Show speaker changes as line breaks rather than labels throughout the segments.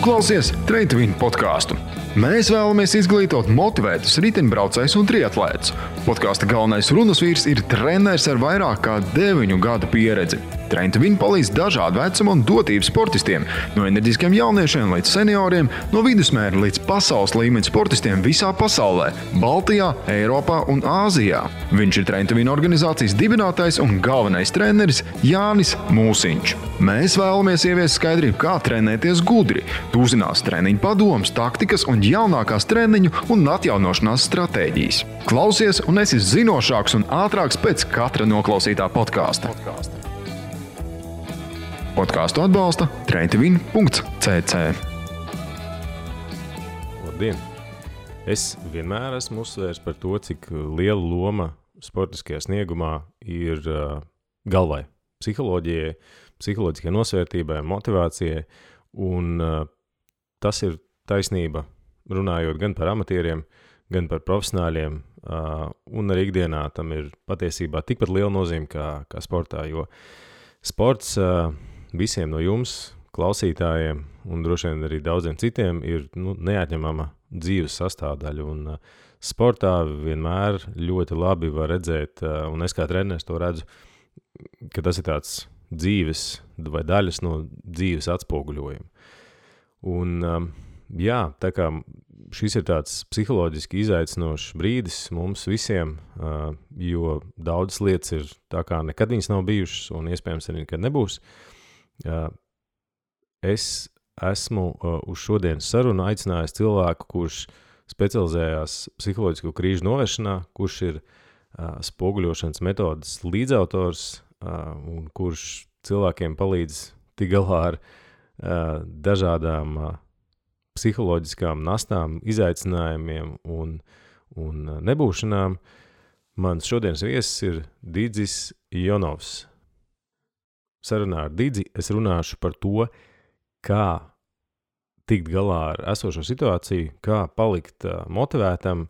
klausies Train to Win podkāstu. Mēs vēlamies izglītot motivētus riteņbraucējus un triatlētus. Podkāsta galvenais runas vīrs ir treneris ar vairāk kā 9 gadu pieredzi. Train to Win palīdz dažādu vecumu un dotību sportistiem, no enerģiskiem jauniešiem līdz senioriem, no vidusmēra līdz pasaules līmeņa sportistiem visā pasaulē, Baltijā, Eiropā un Āzijā. Viņš ir Train to Win organizācijas dibinātājs un galvenais treneris Jānis Mūsiņš. Mēs vēlamies ieviest skaidrību, kā trenēties gudri. Tu uzzinās treniņu padomus, taktikas un jaunākās treniņu un atjaunošanās stratēģijas. Klausies un esi zinošāks un ātrāks pēc katra noklausītā podkāsta. Podkāstu atbalsta traintovin.cc.
Labdien! Es vienmēr esmu uzsvērs par to, cik liela loma sportiskajā sniegumā ir galvai, psiholoģijai, psiholoģiskai nosvērtībai, motivācijai, un tas ir taisnība, runājot gan par amatieriem, gan par profesionāļiem, un arī ikdienā tam ir patiesībā tikpat liela nozīme kā sportā, jo sports visiem no jums, klausītājiem, un droši vien arī daudziem citiem, ir neatņemama dzīves sastāvdaļa, un sportā vienmēr ļoti labi var redzēt, un es kā treneris to redzu, ka tas ir tāds dzīves vai daļas no dzīves atspoguļojuma. Un jā, tā kā šis ir tāds psiholoģiski izaicinošs brīdis mums visiem, jo daudzas lietas ir tā kā nekad viņas nav bijušas un iespējams arī nekad nebūs. Es esmu uz šodienas sarunu aicinājis cilvēku, kurš specializējās psiholoģisko krīžu novēršanā, kurš ir spoguļošanas metodas līdzautors un kurš cilvēkiem palīdz tik galā ar dažādām psiholoģiskām nastām, izaicinājumiem un nebūšanām. Mans šodienas viesis ir Didzis Jonovs. Sarunā ar Didzi es runāšu par to, kā tikt galā ar esošo situāciju, kā palikt motivētam,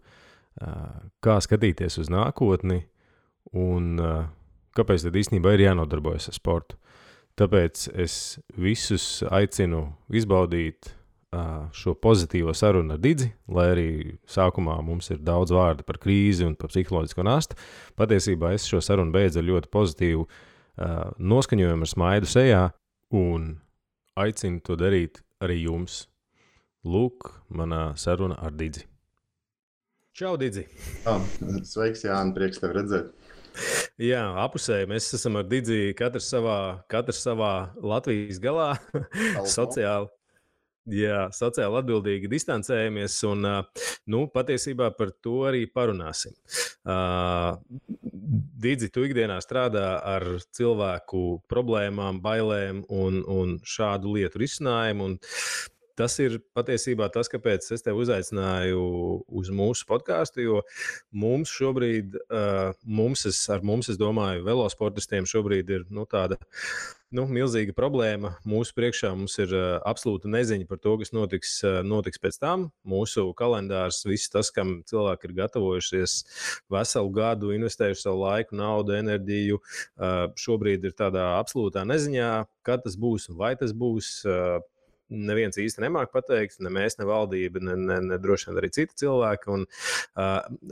kā skatīties uz nākotni un kāpēc tad īstenībā ir jānodarbojas ar sportu. Tāpēc es visus aicinu izbaudīt šo pozitīvo sarunu ar Didzi, lai arī sākumā mums ir daudz vārdu par krīzi un par psiholoģisko nastu. Patiesībā es šo sarunu beidzu ar ļoti pozitīvu noskaņojumu ar smaidu sejā un aicinu to darīt arī jums. Lūk, manā saruna ar Didzi. Čau, Didzi!
Sveiks, Jāni, prieks tevi redzēt.
Jā, apusēji, mēs esam ar Didzi katrs savā Latvijas galā, sociāli atbildīgi distancējamies un, patiesībā par to arī parunāsim. Didzi, tu ikdienā strādā ar cilvēku problēmām, bailēm un šādu lietu risinājumu, un tas ir patiesībā tas, kāpēc es tevi uzaicināju uz mūsu podkāstu, jo mums šobrīd, es domāju, velosportistiem šobrīd ir tāda milzīga problēma. Mūsu priekšā mums ir absolūta neziņa par to, kas notiks pēc tam. Mūsu kalendārs, viss tas, kam cilvēki ir gatavojušies veselu gadu, investējuši savu laiku, naudu, enerģiju, šobrīd ir tādā absolūtā neziņā, kad tas būs un vai tas būs. Neviens īsti nemāk pateikt, ne mēs, ne valdība, ne droši vien arī citi cilvēki. Un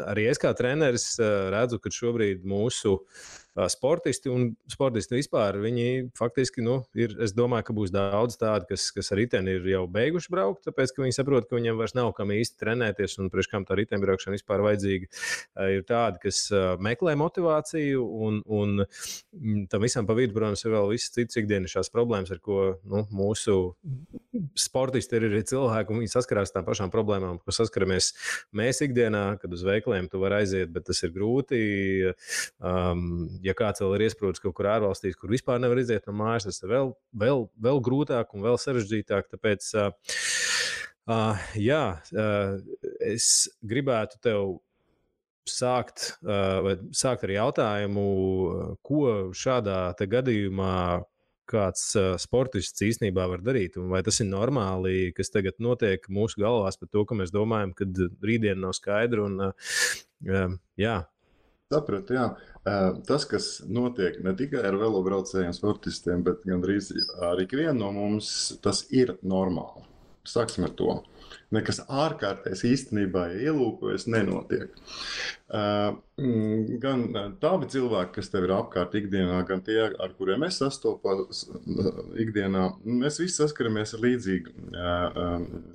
arī es kā treneris redzu, ka šobrīd mūsu sportisti un sportisti vispār, viņi faktiski, es domāju, ka būs daudz tādi, kas ar riteni ir jau beiguši braukt, tāpēc, ka viņi saprot, ka viņiem vairs nav kam īsti trenēties un priekš kam tā riteņbraukšana vispār vajadzīga. Ir tādi, kas meklē motivāciju un tam visam pa vidu, protams, ir vēl visas citas ikdienišķās problēmas, ar ko mūsu sportisti ir arī cilvēki, un viņi saskarās tām pašām problēmām, ko saskaramies mēs ikdienā, kad uz veikaliem tu var aiziet, bet tas ir grūti. Ja kāds vēl ir iesprūdis kaut kur ārvalstīs, kur vispār nevar iziet no mājas, tas ir vēl grūtāk un vēl sarežģītāk. Tāpēc, es gribētu tev sākt ar jautājumu, ko šādā te gadījumā kāds sportists īstenībā var darīt, un vai tas ir normāli, kas tagad notiek mūsu galvās par to, ka mēs domājam, ka rītdiena nav skaidra, un
Sapratu, jā. Tas, kas notiek ne tikai ar velobraucējiem sportistiem, bet gandrīz ar ikvienu no mums, tas ir normāli. Sāksim ar to. Nekas ārkārtējs īstenībā, ja ielūkojas, nenotiek. Gan tādi cilvēki, kas tev ir apkārt ikdienā, gan tie, ar kuriem es sastopos ikdienā, mēs visi saskaramies ar līdzīgu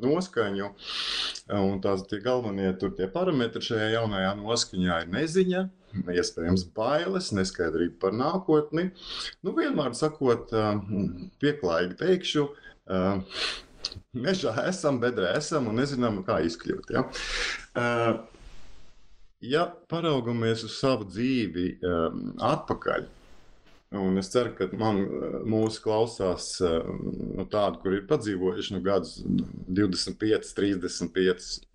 noskaņu. Un tie galvenie tie parametri šajā jaunajā noskaņā ir neziņa, iespējams bailes, neskaidrība par nākotni. Vienmēr sakot, pieklājīgi teikšu, mežā esam, bedrē esam un nezinām, kā izkļūt. Ja? Ja paraugamies uz savu dzīvi atpakaļ, un es ceru, ka mūsu klausās tādi, kur ir padzīvojuši gadus 25, 35,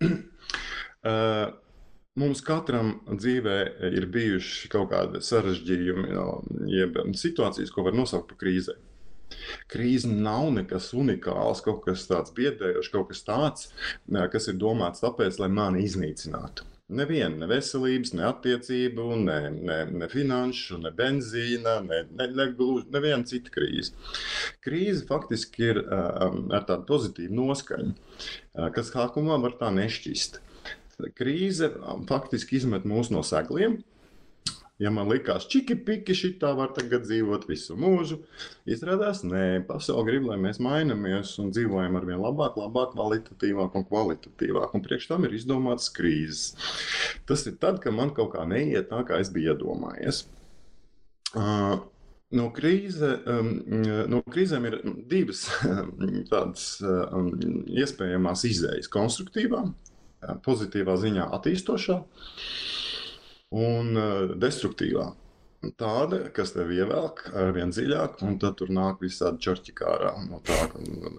mums katram dzīvē ir bijuši kaut kādi sarežģījumi, jeb situācijas, ko var nosaukt par krīzēm. Krīze nav nekas unikāls, kaut kas tāds biedējošs, kaut kas tāds, kas ir domāts tāpēc, lai mani iznīcinātu. Neviena, ne veselības, ne attiecību, ne finanšu, ne benzīna, neviena cita krīze. Krīze faktiski ir ar tādu pozitīvu noskaņu, kas sākumā var tā nešķist. Krīze faktiski izmet mūs no segliem. Ja man likās, čiki-piki, šitā var tagad dzīvot visu mūžu, izrādās, nē, pasaule grib, lai mēs mainamies un dzīvojam arvien labāk, kvalitatīvāk un kvalitatīvāk. Un priekš tam ir izdomāts krīzes. Tas ir tad, kad man kaut kā neiet tā, kā es biju iedomājies. No krīzēm ir divas tādas iespējamās izējas - konstruktīvā, pozitīvā ziņā attīstošā un destruktīvā. Tāda, kas tev ievelk arvien dziļāk, un tad tur nāk visādi čorķi kārā.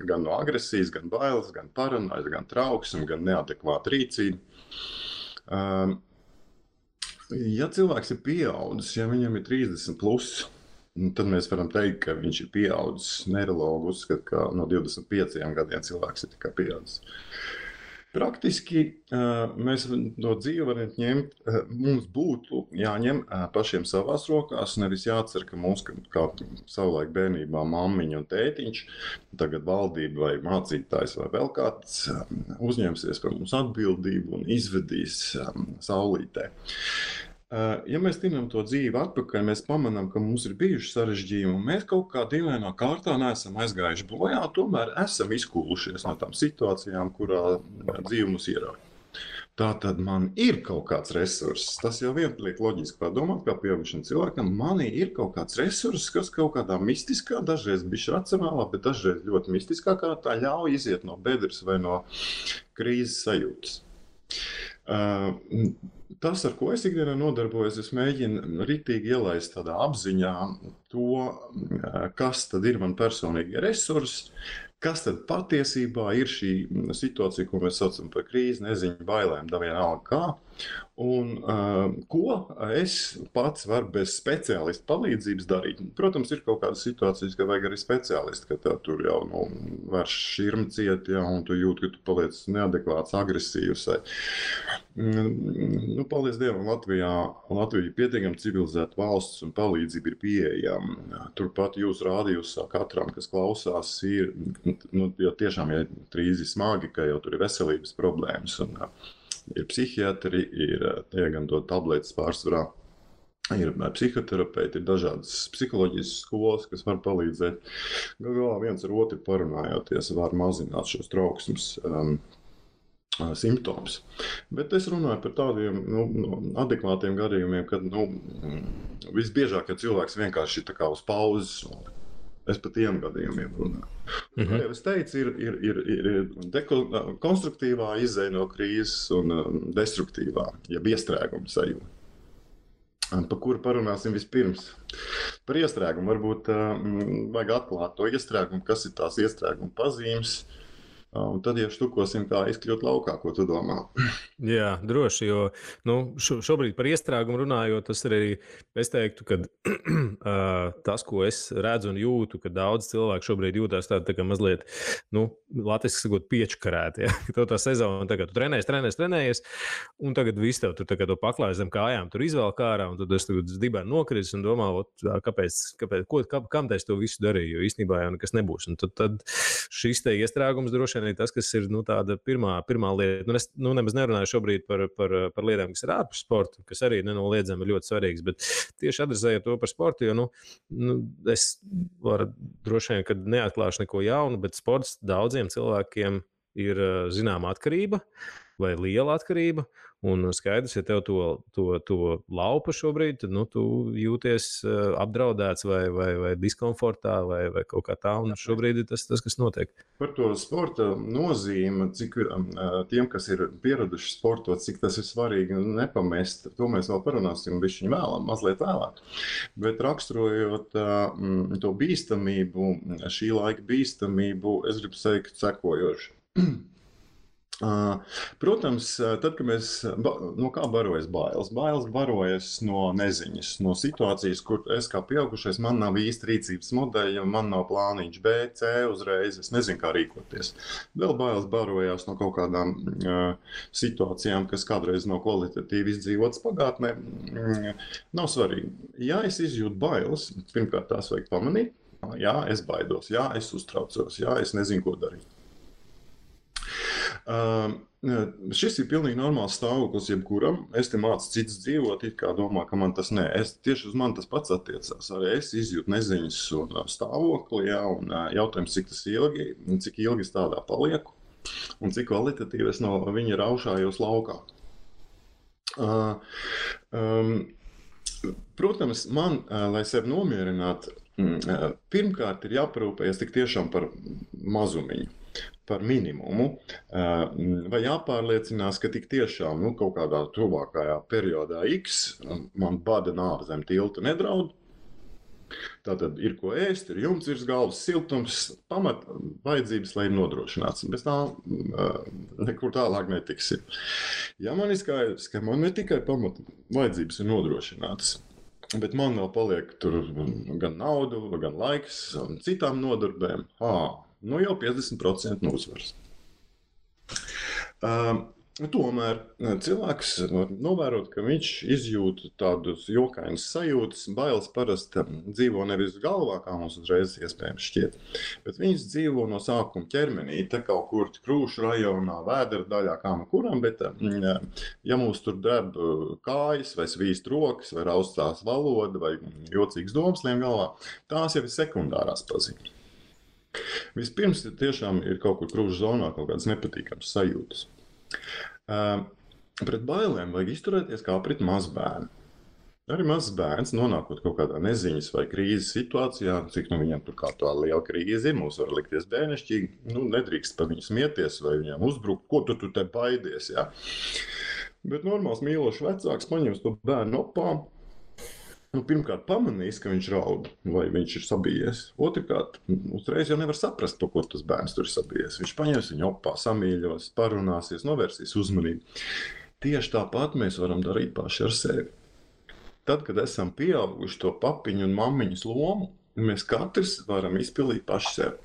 Gan no agresijas, gan bailes, gan paranojas, gan trauksme, gan neadekvāta rīcība. Ja cilvēks ir pieaudzis, ja viņam ir 30 plus, tad mēs varam teikt, ka viņš ir pieaudzis. Neirologi uzskata, ka no 25 gadiem cilvēks ir tikai pieaudzis. Praktiski mēs no dzīvi varam ņemt, mums būtu jāņem pašiem savās rokās, nevis jācer, ka mums, kā savulaik bērnībā mammiņa un tētiņš, tagad valdība vai mācītājs vai vēl kāds uzņemsies par mums atbildību un izvedīs saulītē. Ja mēs tinam to dzīvi atpakaļ, mēs pamanām, ka mums ir bijuši sarežģījumi, un mēs kaut kā dīvainā kārtā neesam aizgājuši bojā, tomēr esam izkūlušies no tām situācijām, kurā dzīve mums ierauj. Tātad man ir kaut kāds resurss. Tas jau vien liek loģiski padomāt, kā pieaugušam cilvēkam, manī ir kaut kāds resurss, kas kaut kādā mistiskā, dažreiz bišķi racionālā, bet dažreiz ļoti mistiskā kārtā ļauj iziet no bedres vai no krīzes sajūtas. Tas, ar ko es ikdienā nodarbojos, es mēģinu ritīgi ielaist tādā apziņā to, kas tad ir man personīgi resursi, kas tad patiesībā ir šī situācija, ko mēs saucam par krīzi, neziņu, bailēm, vienalga kā, un ko es pats varu bez speciālista palīdzības darīt. Protams, ir kaut kādas situācijas, ka vajag arī speciālisti, ka tur jau vairs šķirma ciet, ja, un tu jūti, ka tu paliec neadekvāts, agresīvs. Paldies Dievam, Latvija ir pietiekami civilizēta valsts un palīdzība ir pieejama. Turpat jūs rādījusā katram, kas klausās, ir, jo tiešām ir krīzi smagi, ka jau tur ir veselības problēmas. Un, ir psihiatri, ir gan dot tabletes pārsvarā, ir psihoterapeiti, ir dažādas psiholoģijas skolas, kas var palīdzēt. Galā viens ar otru parunājoties var mazināt šos trauksmes simptomus. Bet es runāju par tādiem adekvātiem gadījumiem, kad visbiežāk, kad cilvēks vienkārši ir tā kā uz pauzes. Es par tiem gadījumiem runāju. Kā jau es teicu, ir konstruktīvā izēja no krīzes un destruktīvā, jeb iestrēguma sajūta. Par kuru parunāsim vispirms? Par iestrēgumu varbūt vajag atklāt to iestrēgumu, kas ir tās iestrēguma pazīmes. Un tad, ja štukosim, kā izkļūt laukā, ko tu domā?
Jā, droši, jo šobrīd par iestrēgumu runājot, tas ir arī, es teiktu, ka tas, ko es redzu un jūtu, ka daudz cilvēku šobrīd jūtās tā kā mazliet, latviski sakot, piečkarēti. Ja? Ka tev tā sezona, tagad tu trenējies, un tagad viss tev tur to paklāj zem kājām, tur izvēl ārā, un tad es tagad dibēnu nokritis un domā, kam es to visu darīju, jo īstenībā jau nekas nebūs. Un tad šis te iestrēgums droši vien arī tas, kas ir tāda pirmā lieta. Es nemaz nerunāju šobrīd par lietām, kas ir ārpus sporta, kas arī nenoliedzami ir ļoti svarīgas. Bet tieši adresējot to par sportu, jo es varu droši vien, ka neatklāšu neko jaunu, bet sports daudziem cilvēkiem ir zināma atkarība vai liela atkarība. Un skaidrs, ja tev to laupa šobrīd, tad tu jūties apdraudēts vai diskomfortā vai kaut kā tā. Un šobrīd ir tas, kas notiek.
Par to sporta nozīmi, cik tiem, kas ir pieraduši sportot, cik tas ir svarīgi nepamest, to mēs vēl parunāsim mazliet vēlāk. Bet raksturojot to bīstamību, šī laika bīstamību, es gribu teikt sekojoši. Protams, tad, kad mēs no kā barojas bailes? Bailes barojas no neziņas, no situācijas, kur es kā pieaugušais, man nav īsti rīcības modeļa, man nav plāniņš B, C uzreiz, es nezinu, kā rīkoties. Vēl bailes barojās no kaut kādām situācijām, kas kādreiz nav kvalitatīvi izdzīvotas pagātnē. Nav svarīgi. Ja es izjūtu bailes, pirmkārt tās vajag pamanīt. Jā, es baidos, jā, es uztraucos, jā, es nezinu, ko darīt. Šis ir pilnīgi normāls stāvoklis jebkuram. Es te mācu citus dzīvot, it kā domā, ka man tas nē. Tieši uz mani tas pats attiecās. Arī es izjūtu neziņas un stāvokli, jā, un jautājums, cik ilgi es tādā palieku un cik kvalitatīvi es no viņa raušājos laukā. Protams, man, lai sevi nomierinātu, pirmkārt ir jāparūpējas tik tiešām par mazumiņu. Par minimumu, vai jāpārliecinās, ka tik tiešām kaut kādā tuvākajā periodā X man bada nāve zem tilta nedraud. Tātad ir ko ēst, ir jumts virs galvas, siltums, pamat vajadzības, lai ir nodrošināts. Bez tā nekur tālāk netiksim. Ja man ir skaidrs, ka man ne tikai pamat vajadzības ir nodrošinātas, bet man vēl paliek tur gan naudu, gan laiks un citām nodarbēm, jau 50% uzvaras. Tomēr cilvēks var novērot, ka viņš izjūt tādus jokainus sajūtas. Bailes parasti dzīvo nevis galvā, kā mums uzreiz iespējams šķiet, bet viņas dzīvo no sākuma ķermenī, te kaut kur Krūšu rajonā, Vēdera daļā, kā no kuram, bet ja mums tur dreb kājas, vai svīst rokas, vai raustās valoda, vai jocīgs domas lien galvā, tās jau ir sekundārās pazīmes. Vispirms tiešām ir kaut kur Krūšu zonā kaut kādas nepatīkamas sajūtas. Pret bailēm vajag izturēties kā pret mazbērnu. Arī mazs bērns, nonākot kaut kādā neziņas vai krīzes situācijā, cik viņam tur kā tā liela krīze ir, mums var likties bērnišķīgi, nedrīkst par viņu smieties vai viņam uzbrukt, ko tu te baidies, jā. Bet normāls mīlošs vecāks paņems to bērnu opā, pirmkārt pamanīs, ka viņš raud vai viņš ir sabijies. Otrkārt, uzreiz jau nevar saprast, par ko tas bērns tur ir sabijies. Viņš paņems viņu opā, samīļos, parunāsies, novērsīs uzmanību. Tieši tāpat mēs varam darīt paši ar sevi. Tad, kad esam pieauguši to papiņu un mammiņas lomu, mēs katrs varam izpildīt paši sevi.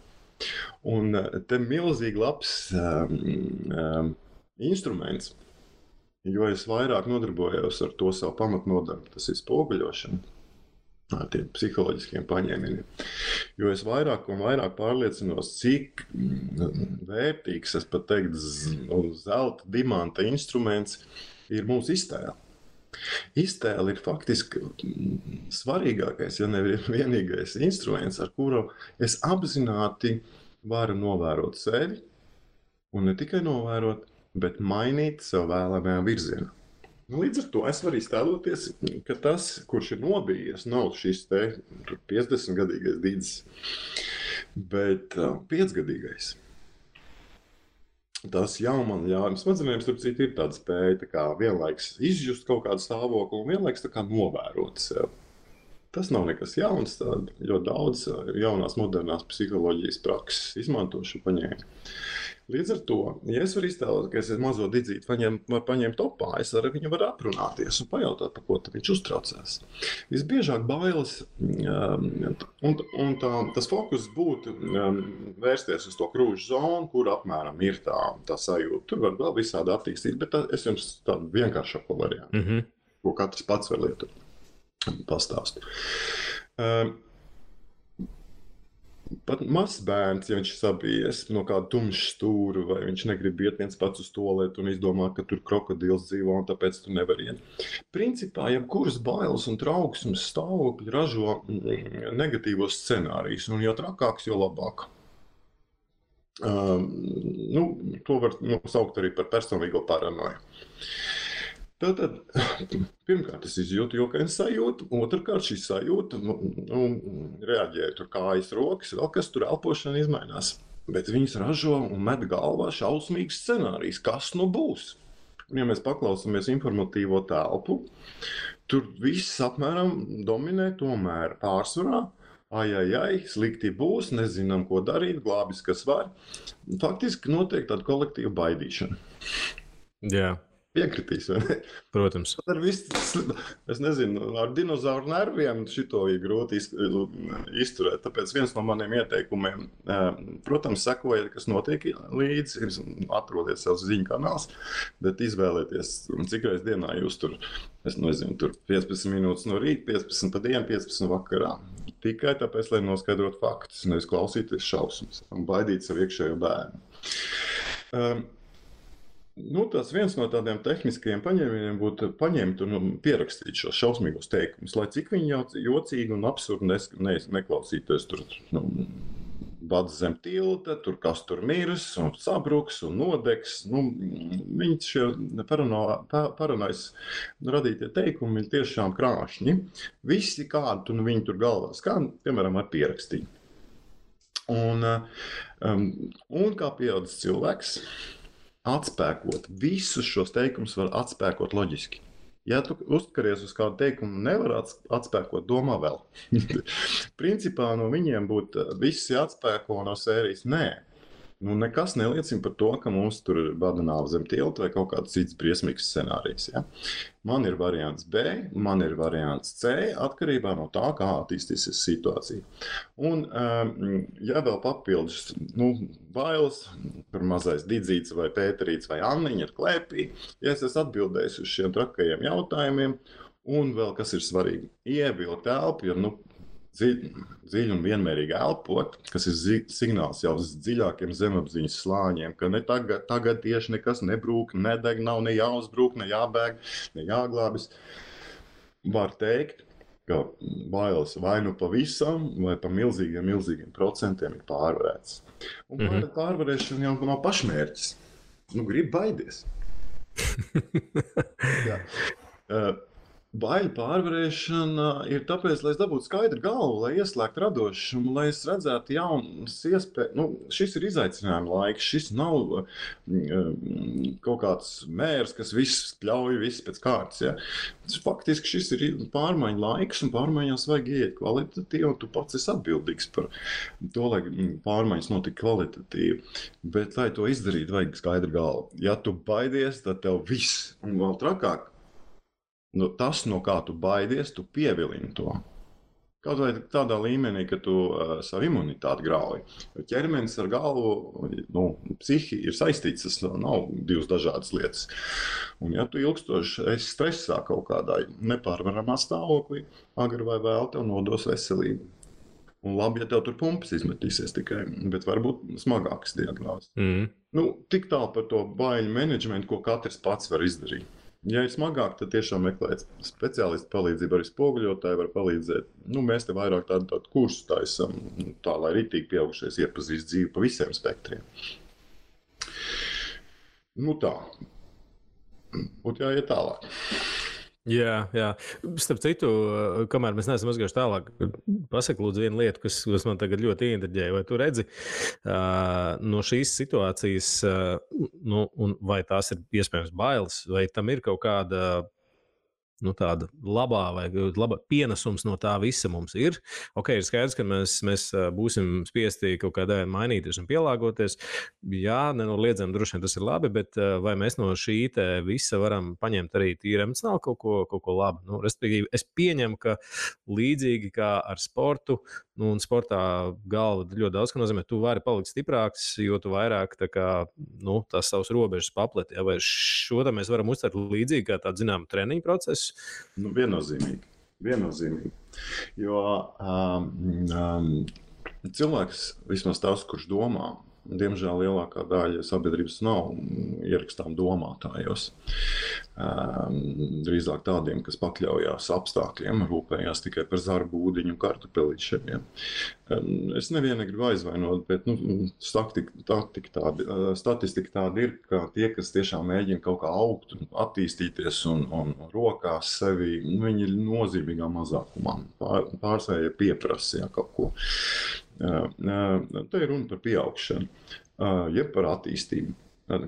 Un te milzīgi labs instruments. Jo es vairāk nodarbojos ar to savu pamatnodarbu, tas ir spoguļošana, ar tiem psiholoģiskiem paņēmieniem. Jo es vairāk un vairāk pārliecinos, cik vērtīgs, es pat teiktu, zelta, dimanta instruments ir mūsu iztēle. Iztēle ir faktiski svarīgākais, ja ne vienīgais instruments, ar kuru es apzināti varu novērot sevi, un ne tikai novērot, bet mainīt savu vēlamajā virzienā. Līdz ar to es varu iztēloties, ka tas, kurš ir nobijies, nav šis te 50-gadīgais dīdzis, bet 5-gadīgais. Tas jau man ļauj, smadzenēm starp citu ir tāda spēja tā kā vienlaiks izjust kaut kādu stāvokli un vienlaiks tā kā novērot sev. Tas nav nekas jauns, ļoti daudz jaunās modernās psiholoģijas prakses izmanto šo paņēmu. Līdz ar to, ja es varu iztēlot, ka es mazo didzīti var paņemt opā, es ar viņu varu aprunāties un pajautāt, par ko viņš uztraucās. Visbiežāk bailes, un tas fokus būtu vērsties uz to Krūšu zonu, kur apmēram ir tā sajūta. Tur var vēl visādi attīstīt, bet es jums tādu vienkāršāko variantu, ko katrs pats var lietot, pastāstu. Pat mazs bērns, ja viņš ir sabijies no kāda tumša stūra, vai viņš negrib iet viens pats uz tualeti un izdomā, ka tur krokodils dzīvo un tāpēc tu nevari iet. Principā, jebkuras bailes un trauksmes stāvokļi ražo negatīvos scenārijus, un jo trakāks, jo labāk. To var saukt arī par personīgo paranoju. Tātad, pirmkārt, es izjūtu jokainu sajūtu, otrkārt, šī sajūta reaģēja tur kājas, rokas, vēl kas tur elpošana izmainās. Bet viņas ražo un met galvā šausmīgs scenārijs, kas nu būs. Un, ja mēs paklausāmies informatīvo telpu, tur viss apmēram dominē tomēr pārsvarā. Ai, slikti būs, nezinām, ko darīt, glābis, kas var. Faktiski notiek tāda kolektīva baidīšana.
Jā.
Piekritīs, vai ne?
Protams.
Es nezinu, ar dinozauru nerviem šito ir grūti izturēt. Tāpēc viens no maniem ieteikumiem, protams, sekojiet, kas notiek līdzi, atrodiet savus ziņu kanāls, bet izvēlieties, cik reiz dienā jūs tur, es nezinu, tur 15 minūtes no rīta, 15 pa dienu, 15 vakarā. Tikai tāpēc, lai noskaidrotu faktus, nevis klausīties šausmas un baidīt savu iekšējo bērnu. Tas viens no tādiem tehniskajiem paņēmieniem būtu paņemt un pierakstīt šos šausmīgos teikumus, lai cik viņi jocīgi un absurdi neklausītos tur bads zem tilta, tur kas tur mirs un sabruks un nodegs. Viņi šie paranojas radītie teikumi ir tiešām krāšņi. Visi kādu viņi tur galvās, kā piemēram ar pierakstīju. Un kā pieaudzis cilvēks, atspēkot visus šos teikumus var atspēkot loģiski. Ja tu uzkaries uz kādu teikumu, nevar atspēkot, domā vēl. Principā no viņiem būtu visi atspēko no sērijas nē. Nekas neliecina par to, ka mums tur ir bada nāve zem tilta vai kaut kāds cits briesmīgs scenārijs. Ja? Man ir variants B, man ir variants C, atkarībā no tā, kā attīstīsies situācija. Un, ja vēl papildus bailes, tur mazais Didzīts vai Pēterīts vai Anniņa ir klēpī, ja es esmu atbildējis uz šiem trakajiem jautājumiem, un vēl kas ir svarīgi, ievilkt elpu, jo dziļi un vienmērīgi elpot, kas ir signāls jau uz dziļākiem zemapziņas slāņiem, ka ne tagad tieši nekas nebrūk, nedeg, nav ne jāuzbrūk, ne jābēg, ne jāglābis. Var teikt, ka bailes vai nu pavisam, vai pa milzīgiem procentiem ir pārvarēts. Un pārvarēšana jau nav pašmērķis. Grib baidies. Jā. Baiļu pārvarēšana ir tāpēc, lai es dabūtu skaidru galvu, lai ieslēgtu radošumu, lai es redzētu jaunas iespējas. Šis ir izaicinājuma laiks, šis nav kaut kāds mērs, kas viss pļauj, viss pēc kārtas. Ja? Faktiski šis ir pārmaiņu laiks, un pārmaiņās vajag iet kvalitatīvi, un tu pats esi atbildīgs par to, lai pārmaiņas notika kvalitatīvi. Bet, lai to izdarītu, vajag skaidru galvu. Ja tu baidies, tad tev viss, un vēl trakāk, tas, no kā tu baidies, tu pievilini to. Kaut vai tādā līmenī, ka tu savu imunitāti grauji. Ķermenis ar galvu, psihi ir saistīts, tas nav divas dažādas lietas. Un ja tu ilgstoši esi stresā kaut kādā nepārvaramā stāvoklī, agri vai vēl tev nodos veselību. Un labi, ja tev tur pumpas izmetīsies tikai, bet varbūt smagākas diagnozes. Tik tālu par to baiļu menedžmentu, ko katrs pats var izdarīt. Ja ir smagāk, tad tiešām meklēt speciālistu palīdzību, arī spoguļotāji var palīdzēt. Mēs te vairāk tādu kursu taisam, tā lai ritīgi pieaugušais iepazīst dzīvi pa visiem spektriem. Tā. Būtu jāiet tālāk.
Jā. Starp citu, kamēr mēs neesam aizgājuši tālāk, pasaka lūdzu vienu lietu, kas man tagad ļoti ieinteresēja. Vai tu redzi no šīs situācijas, vai tās ir iespējams bailes, vai tam ir kaut kāda tāda labā vai laba pienesums no tā visa mums ir. Ir skaidrs, ka mēs būsim spiesti kaut kādā mainīties un pielāgoties. Jā, nenoliedzami droši vien tas ir labi, bet vai mēs no šī visa varam paņemt arī tīri emocionāli kaut ko labu? Respektīvi, es pieņemu, ka līdzīgi kā ar sportu, un sportā galva ļoti daudz, ka nozīmē, tu vari palikt stiprāks, jo tu vairāk tās savas robežas papleti. Vai šo mēs varam uztvert līdzīgi kā tādu zināmu treniņu procesu?
Viennozīmīgi. Jo cilvēks, vismaz tas, kurš domā, diemžēl lielākā daļa sabiedrības nav ierakstām domātājos. Drīzāk tādiem, kas pakļaujās apstākļiem, rūpējās tikai par zarbu, ūdeņu, kartupelīšiem. Es nevienu negribu aizvainot, bet statistika tāda ir, ka tie, kas tiešām mēģina kaut kā augt, attīstīties un rokās sevi, viņi ir nozīmīgā mazākumā. Pārsvarā pieprasa kaut ko. Te ir runa par pieaugšanu, jeb par attīstību.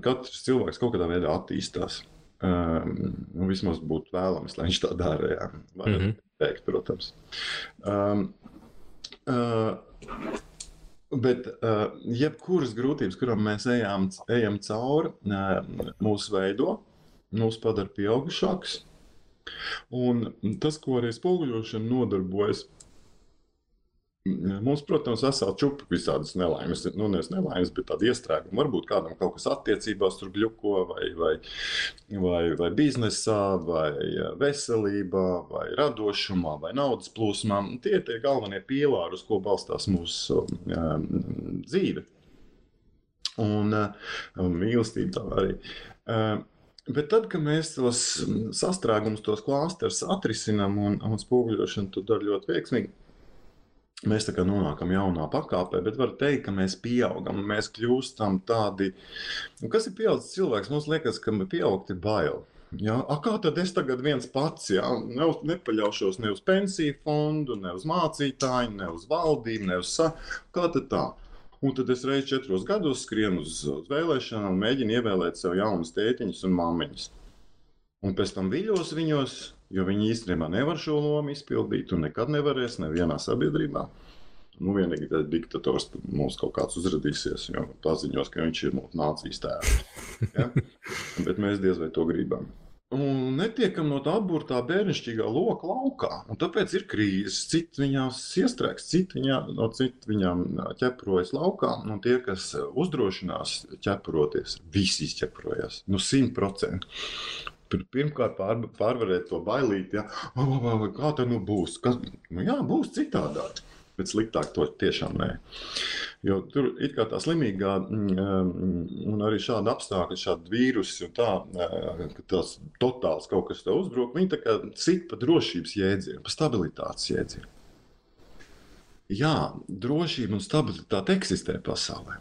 Katrs cilvēks kaut kādā veidā attīstās. Vismaz būtu vēlams, lai viņš tā dara. Jā. Var teikt, protams. Bet jebkuras grūtības, kurām mēs ejam cauri, mūs veido, mūs padara pieaugušāks. Un tas, ko arī spoguļošana nodarbojas, mums, protams, vesela čupa visādas nelaimes, nevis nelaimes, bet tāda iestrēguma. Varbūt kādam kaut kas attiecībās tur bļuko, vai biznesā, vai veselībā, vai radošumā, vai naudas plūsmā. Tie ir tie galvenie pīlāri, uz ko balstās mūsu dzīve. Un mīlestība tā arī. Bet tad, kad mēs tos sastrēgumus, tos klāsterus atrisinām un spoguļošanu to dara ļoti veiksmīgi, mēs tā kā nonākam jaunā pakāpē, bet var teikt, ka mēs pieaugam, mēs kļūstam tādi. Kas ir pieaudzis cilvēks? Mums liekas, ka pieaugt ir bail. Ja? Kā tad es tagad viens pats, ja? Nepaļaušos ne uz pensiju fondu, ne uz mācītāju, ne uz valdību, ne uz kā tad tā? Un tad es reiz 4 gados skrienu uz vēlēšanām un mēģinu ievēlēt sev jaunus tētiņus un māmiņus. Un pēc tam viļos viņos, jo viņi īstenībā nevar šo lomu izpildīt un nekad nevarēs nevienā sabiedrībā. Vienīgi tas diktators mums kaut kāds uzradīsies, jo paziņos, ka viņš ir mūsu nācijas tēvs. Ja? Bet mēs diez vai to gribam. Un netiekam no tā apburtā bērnišķīgā loka laukā. Un tāpēc ir krīzes. Citi viņās iestrēgs, citi viņām ķeprojas laukā. Un tie, kas uzdrošinās ķeproties, visi izķeprojas. 100%. Pirmkārt pārvarēt to bailīti, ja? Kā tā būs? Jā, būs citādāk, bet sliktāk to tiešām nē. Jo tur it kā tā slimīgā un arī šāda apstākļa, šāda vīrusi un tā, ka tās totāls kaut kas tev uzbruk, viņi tā kā sit pa drošības jēdzienu, pa stabilitātes jēdzienu. Jā, drošība un stabilitāte eksistē pasaulē,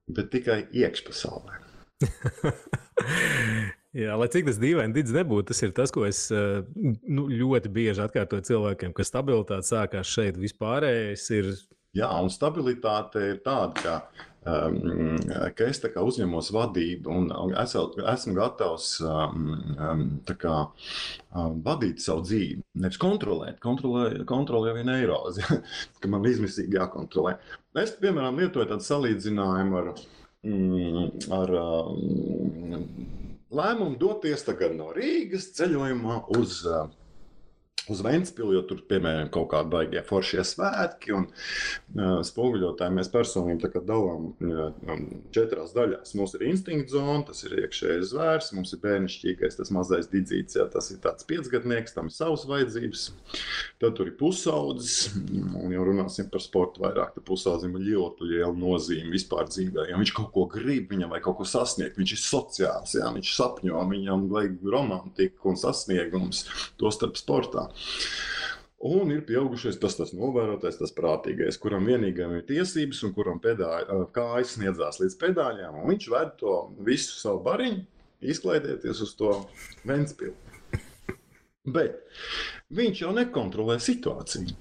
bet tikai iekšpasaulē.
Jā, lai cik tas dīvaini Didz nebūtu, tas ir tas, ko es ļoti bieži atkārtoju cilvēkiem, ka stabilitāte sākās šeit vispārējais ir.
Jā, un stabilitāte ir tāda, ka es tā kā uzņemos vadību un esmu gatavs tā kā vadīt savu dzīvi. Nevis kontrolēt, kontrolē vien eirozi, ka man izmisīgi jākontrolē. Es, piemēram, lietoju tādu salīdzinājumu ar lēmumu doties tagad no Rīgas ceļojumā uz Ventspili, jo tur, piemēram, kaut kādi baigie foršie svētki un spoguļotāji mēs personīgi tā kā dalām 4 daļās. Mums ir instinkta zona, tas ir iekšējais zvērs, mums ir bērnišķīgais, tas mazais didzīts, jā, tas ir tāds 5-gadnieks, tam ir savas vajadzības. Tad tur ir pusaudzis, un jau runāsim par sportu vairāk, tad pusaudzim ir ļoti liela nozīme vispār dzīvē, ja viņš kaut ko grib, viņam vai kaut ko sasniegt, viņš ir sociāls, jā, viņš sapņo, viņam vajag romantiku un sasniegums, to starp sportā. Un ir pieaugušais tas novērotais, tas prātīgais, kuram vienīgajam ir tiesības un kuram kājas sniedzās līdz pedāļām, un viņš ved to visu savu bariņu, izklaidēties uz to Ventspili. Bet viņš jau nekontrolē situāciju.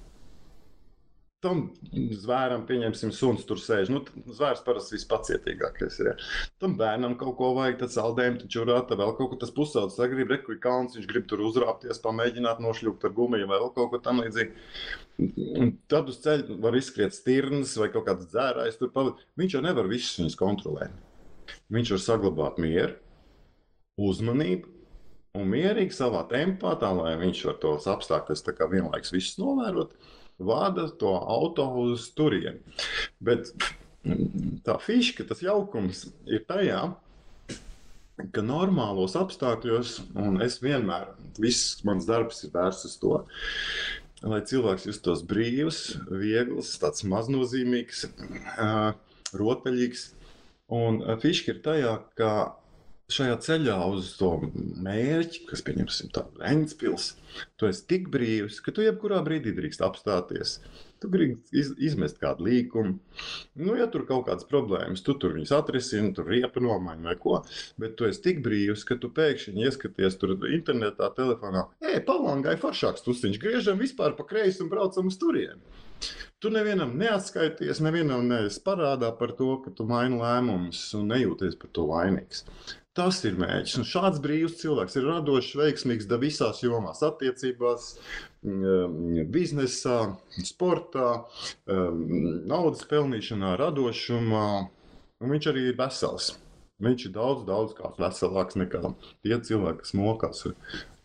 Tam zvēram, pieņemsim, suns tur sēž. Zvērs parasti vispacietīgākais ir. Ja. Tam bērnam kaut ko vajag, tad saldējumu, tad čurāta, vēl kaut ko tas pusaudzis grib, rekuļ kalns, viņš grib tur uzrāpties, pamēģināt nošļūkt ar gumiju, vēl kaut ko tam līdzīgi. Un tad uz ceļa var izskriet stirnas vai kaut kāds dzērājs tur pavadīt. Viņš jau nevar visus viņus kontrolēt. Viņš var saglabāt mieru, uzmanību un mierīgi savā tempā, tā lai viņš var tos apstākļus tā kā vienlaiks visus novērot. Vada to auto uz turieni. Bet tā fiška, tas jaukums ir tajā, ka normālos apstākļos, un es vienmēr, viss mans darbs ir vērsts uz to, lai cilvēks justos brīvs, viegls, tāds maznozīmīgs, rotaļīgs. Un fiška ir tajā, ka šajā ceļā uz to mērķi, kas, pieņemsim, tādu Ventspils, tu esi tik brīvs, ka tu jebkurā brīdī drīkst apstāties. Tu gribi izmest kādu līkumu. Nu, ja tur kaut kādas problēmas, tu tur viņus atrisini, tur riepa nomaini vai ko, bet tu esi tik brīvs, ka tu pēkšņi ieskaties tur internetā, telefonā, Palangai foršāks tusiņš, griežam vispār pa kreisi un braucam uz turieni. Tu nevienam neatskaities, nevienam neesi parādā par to, ka tu maini lēmumus un nejūties par to vainīgs. Tas ir mērķis. Un šāds brīvs cilvēks ir radošs, veiksmīgs visās jomās, attiecībās, biznesā, sportā, naudas pelnīšanā, radošumā. Un viņš arī ir vesels. Viņš ir daudz kā veselāks nekā tie cilvēki, kas mokās ar,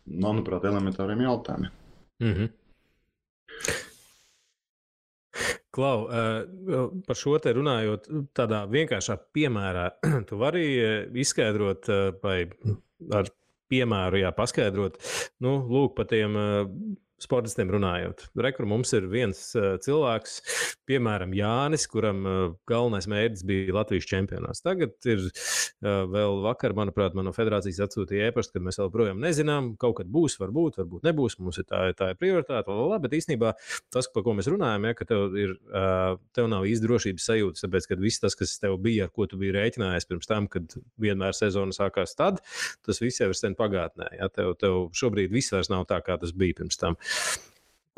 manuprāt, elementāriem jautājumiem.
Mhm. Klau, par šo te runājot, tādā vienkāršā piemērā, tu vari izskaidrot vai ar piemēru paskaidrot, lūk, par tiem sportistiem runājot. Rekur mums ir viens cilvēks, piemēram, Jānis, kuram galvenais mērķis bija Latvijas čempionāts. Tagad ir vēl vakar, manuprāt, man no federācijas atsūtīja ēpastu, kad mēs vēl projām nezinām, kaut kad būs, varbūt nebūs, mums ir tā ir prioritāte, bet īstenībā tas, par ko mēs runājam, ka tev nav īsti drošības sajūtas, tāpēc, ka viss tas, kas tev bija, ar ko tu biji rēķinājies pirms tam, kad vienmēr sezona sākās tad, tas viss jau ir sen pagātnē. Tev šobrīd viss vairs nav tā, kā tas bija pirms tam.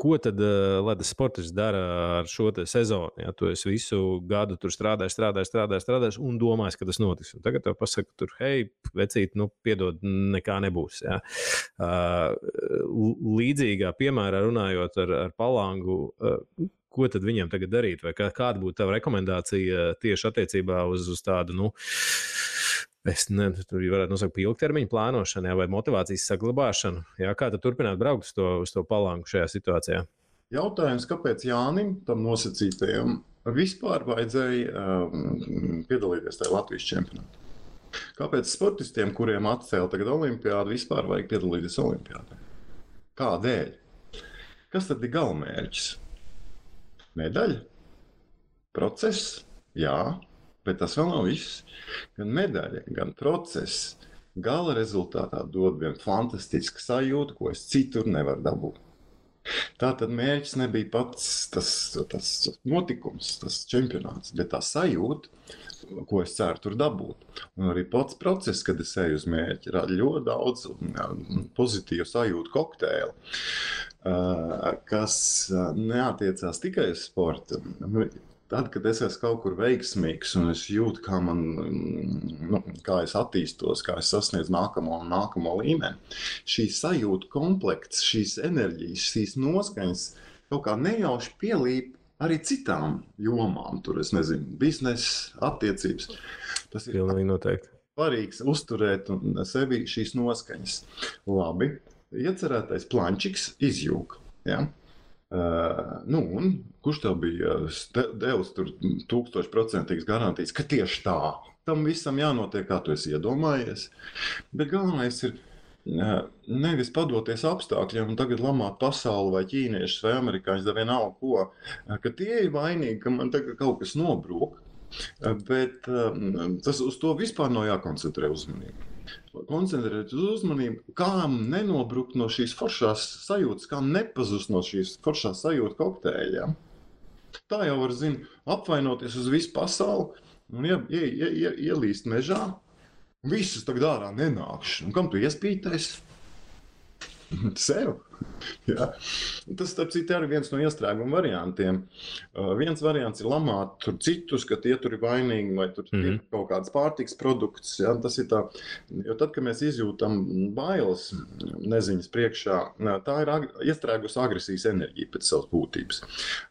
Ko tad Latvijas sportists dara ar šo sezonu? Ja tu esi visu gadu tur strādājis un domājis, ka tas notiks. Un tagad tev pasaka, tur, hei, vecīt, piedod, nekā nebūs. Ja. Līdzīgā piemērā runājot ar Palangu, ko tad viņam tagad darīt? Vai kāda būtu tava rekomendācija tieši attiecībā uz tādu, tur varētu nosaukt ilgtermiņa plānošanu, vai motivācijas saglabāšanu. Jā, kā tad turpināt braukt uz to Palangu šajā situācijā?
Jautājums, kāpēc Jānim, tam nosacītajam, vispār vajadzēja piedalīties tajā Latvijas čempionātā? Kāpēc sportistiem, kuriem atcēla tagad olimpiādu, vispār vajag piedalīties olimpiādē? Kādēļ? Kas tad ir galamērķis? Medaļa? Process? Jā. Bet tas vēl nav viss. Gan medaļa, gan process gala rezultātā dod vienu fantastisku sajūtu, ko es citur nevaru dabūt. Tātad mērķis nebija pats tas notikums, tas čempionāts, bet tā sajūta, ko es ceru tur dabūt. Un arī pats process, kad es eju uz mērķi, rada ļoti daudz pozitīvu sajūtu kokteili, kas neatiecās tikai uz sportu. Tad, kad es esmu kaut kur veiksmīgs un es jūtu, kā es attīstos, kā es sasniedzu nākamo līmeni, šī sajūta komplekts, šīs enerģijas, šīs noskaņas kaut kā nejauši pielīp arī citām jomām. Tur, es nezinu, biznesa, attiecības. Tas ir svarīgs uzturēt sevi šīs noskaņas. Labi, iecerētais plančiks izjūg. Ja? Un kurš tev bija devis 1000% garantijas, ka tieši tā? Tam visam jānotiek, kā tu esi iedomājies. Bet galvenais ir nevis padoties apstākļiem un tagad lamāt pasauli vai ķīniešus vai amerikāņus, da vienalga ko, ka tie ir vainīgi, ka man tagad kaut kas nobrūk. Bet tas uz to vispār nav jākoncentrē uzmanību. Koncentrēt uz uzmanību, kā nenobrukt no šīs foršās sajūtas, kā nepazust no šīs foršās sajūtas kokteļa. Tā jau var, apvainoties uz visu pasauli un ielīst mežā. Visus tagad ārā nenākšu. Un kam tu iespītais? Sev. Jā. Tas, starp citu, ir viens no iestrēguma variantiem. Viens variants ir lamāt tur citus, ka tie tur ir vainīgi vai tur ir kaut kāds pārtiks produkts. Jā. Tas ir tā, jo tad, kad mēs izjūtam bailes neziņas priekšā, tā ir iestrēgusi agresijas enerģija pēc savas būtības.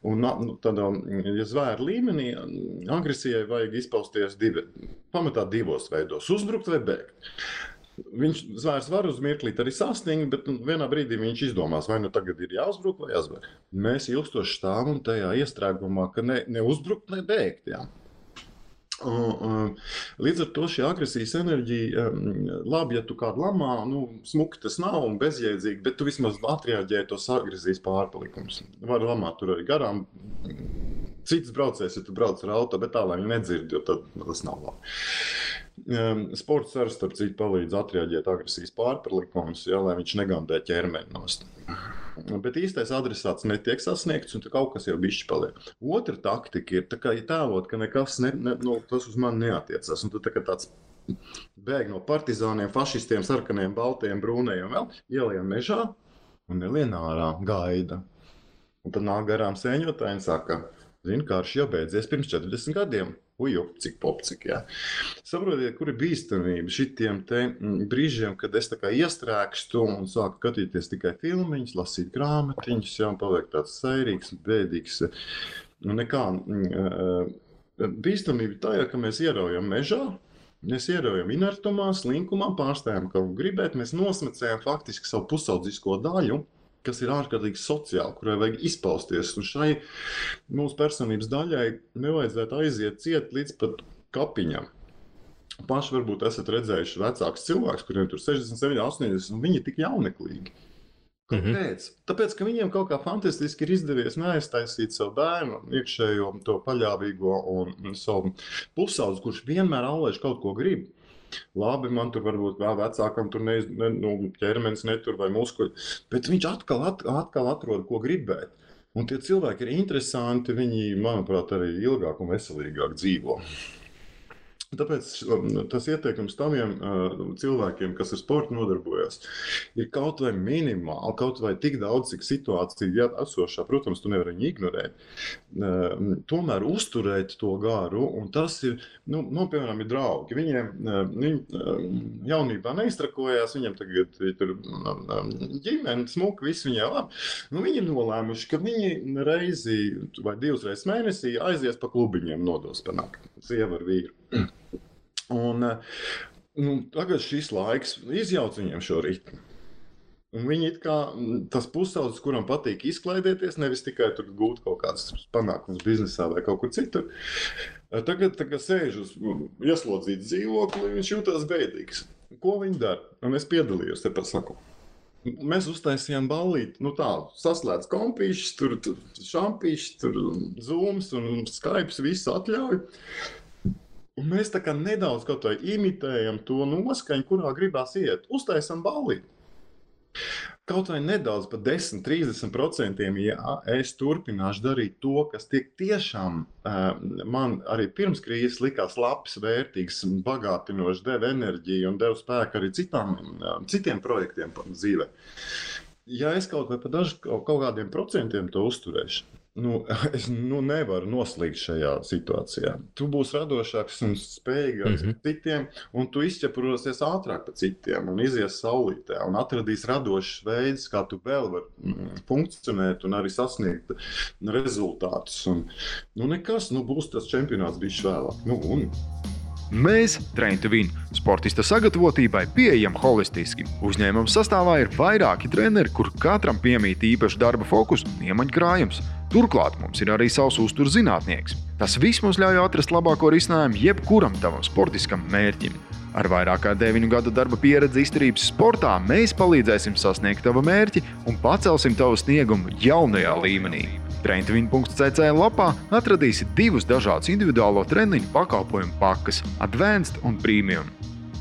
Un tad, ja zvēra līmenī, agresijai vajag izpausties pamatā divos veidos - uzbrukt vai bēgt. Zvērs var uz mirklīt arī sastingt, bet vienā brīdī viņš izdomās, vai tagad ir jāuzbruk vai jāzver. Mēs ilgstoši stāvam tajā iestrēgumā, ka ne uzbrukt, ne bēgt. Jā. Līdz ar to šī agresijas enerģija, labi, ja tu kādu lamā, smuki tas nav un bezjēdzīgi, bet tu vismaz atreaģēji tos agresijas pārpalikumus. Var lamāt tur arī garām. Cits braucējs, ja tu brauc ar auto, bet tā, lai viņi nedzird, jo tad tas nav labi. Sports arī, starp citu, palīdz atreaģēt agresijas pārpalikumus, lai viņš negandē ķermeni nost. Bet īstais adresāts netiek sasniegts, un kaut kas jau bišķi paliek. Otra taktika ir tēlot, ka nekas tas uz mani neatiecas. Un tu tāds bēg no partizāniem, fašistiem, sarkaniem, baltiem, brūnējiem vēl, ielien mežā un nelien ārā, gaida. Un tad nāk garām sēņotāji un saka, zini, karš jau beidzies pirms 40 gadiem. Uju, cik popcik, jā. Saprotiet, kur ir bīstamība šitiem te brīžiem, kad es tā kā iestrēgstu un sāku skatīties tikai filmiņus, lasīt grāmatiņus, jā, un paliek tāds sairīgs, bēdīgs. Un nekā, bīstamība tajā, ka mēs ieraujam mežā, mēs ieraujam inertumā, slinkumā, pārstājam kaut gribēt, mēs nosmecējam faktiski savu pusaudzisko daļu, kas ir ārkārtīgi sociāli, kurai vajag izpausties. Un šai mūsu personības daļai nevajadzētu aiziet ciet līdz pat kapiņam. Paši varbūt esat redzējuši vecākus cilvēkus, kuriem tur 67, 80, un viņi ir tik jauneklīgi. Kāpēc? Tāpēc, ka viņiem kaut kā fantastiski ir izdevies neaiztaisīt savu bērnu, iekšējo to paļāvīgo un savu pusaudzi, kurš vienmēr aulēž kaut ko grib. Labi, man tur varbūt vēl vecākam tur ķermenis netur vai muskuļi, bet viņš atkal atrod, ko gribēt. Un tie cilvēki ir interesanti, viņi, manuprāt, arī ilgāk un veselīgāk dzīvo. Tāpēc tas ieteikums taviem cilvēkiem, kas ar sportu nodarbojas, ir kaut vai minimāli, kaut vai tik daudz, cik situācija esošā, protams, tu nevari viņu ignorēt, tomēr uzturēt to garu, un tas ir, piemēram, ir draugi. Viņi jaunībā neiztrakojās, viņam tagad tur ģimene, smuka, viss viņai labi. Viņi ir nolēmuši, ka viņi reizi vai 2 reizes mēnesī aizies pa klubiņiem nodos panākt, sieva ar vīru. Un tagad šis laiks izjauc viņiem šo ritmu. Un viņi it kā tas pusaudzis, kuram patīk izklaidēties, nevis tikai tur gūt kaut kādas panākumus biznesā vai kaut kur citur. Tagad sēž uz ieslodzītu dzīvokli, viņš jūtas bēdīgs. Ko viņi dara? Un es piedalījos, te pasaku. Mēs uztaisījām ballīti, saslēdz kompīšus, tur šampīšus, tur zooms un Skypes, visu atļauj. Un mēs tā kā nedaudz kaut vai imitējam to noskaņu, kurā gribās iet. Uztaisam ballīti. Kaut vai nedaudz pa 10-30%, ja es turpināšu darīt to, kas tiešām man arī pirms krīzes likās labs, vērtīgs, bagātinošs, deva enerģiju un deva spēku arī citiem projektiem dzīvē. Ja es kaut vai pa kaut kādiem procentiem to uzturēšu, es nevaru noslīgt šajā situācijā. Tu būsi radošāks un spējīgāks par citiem, un tu izķeprosies ātrāk par citiem un izies saulītē un atradīs radošs veids, kā tu vēl vari funkcionēt un arī sasniegt rezultātus. Un, nekas, būs tas čempionāts bišķi vēlāk.
Mēs, Train to Win, sportista sagatavotībai pieejam holistiski. Uzņēmuma sastāvā ir vairāki treneri, kur katram piemīt īpaši darba fokus un iemaņkrājums. Turklāt mums ir arī savs uzturs zinātnieks. Tas viss mums ļauj atrast labāko risinājumu jebkuram tavam sportiskam mērķim. Ar vairāk kā 9 gadu darba pieredzi izturības sportā mēs palīdzēsim sasniegt tavu mērķi un pacelsim tavu sniegumu jaunajā līmenī. Traintvin.cc lapā atradīsi 2 dažādus individuālo treniņu pakalpojumu pakas – Advanced un Premium.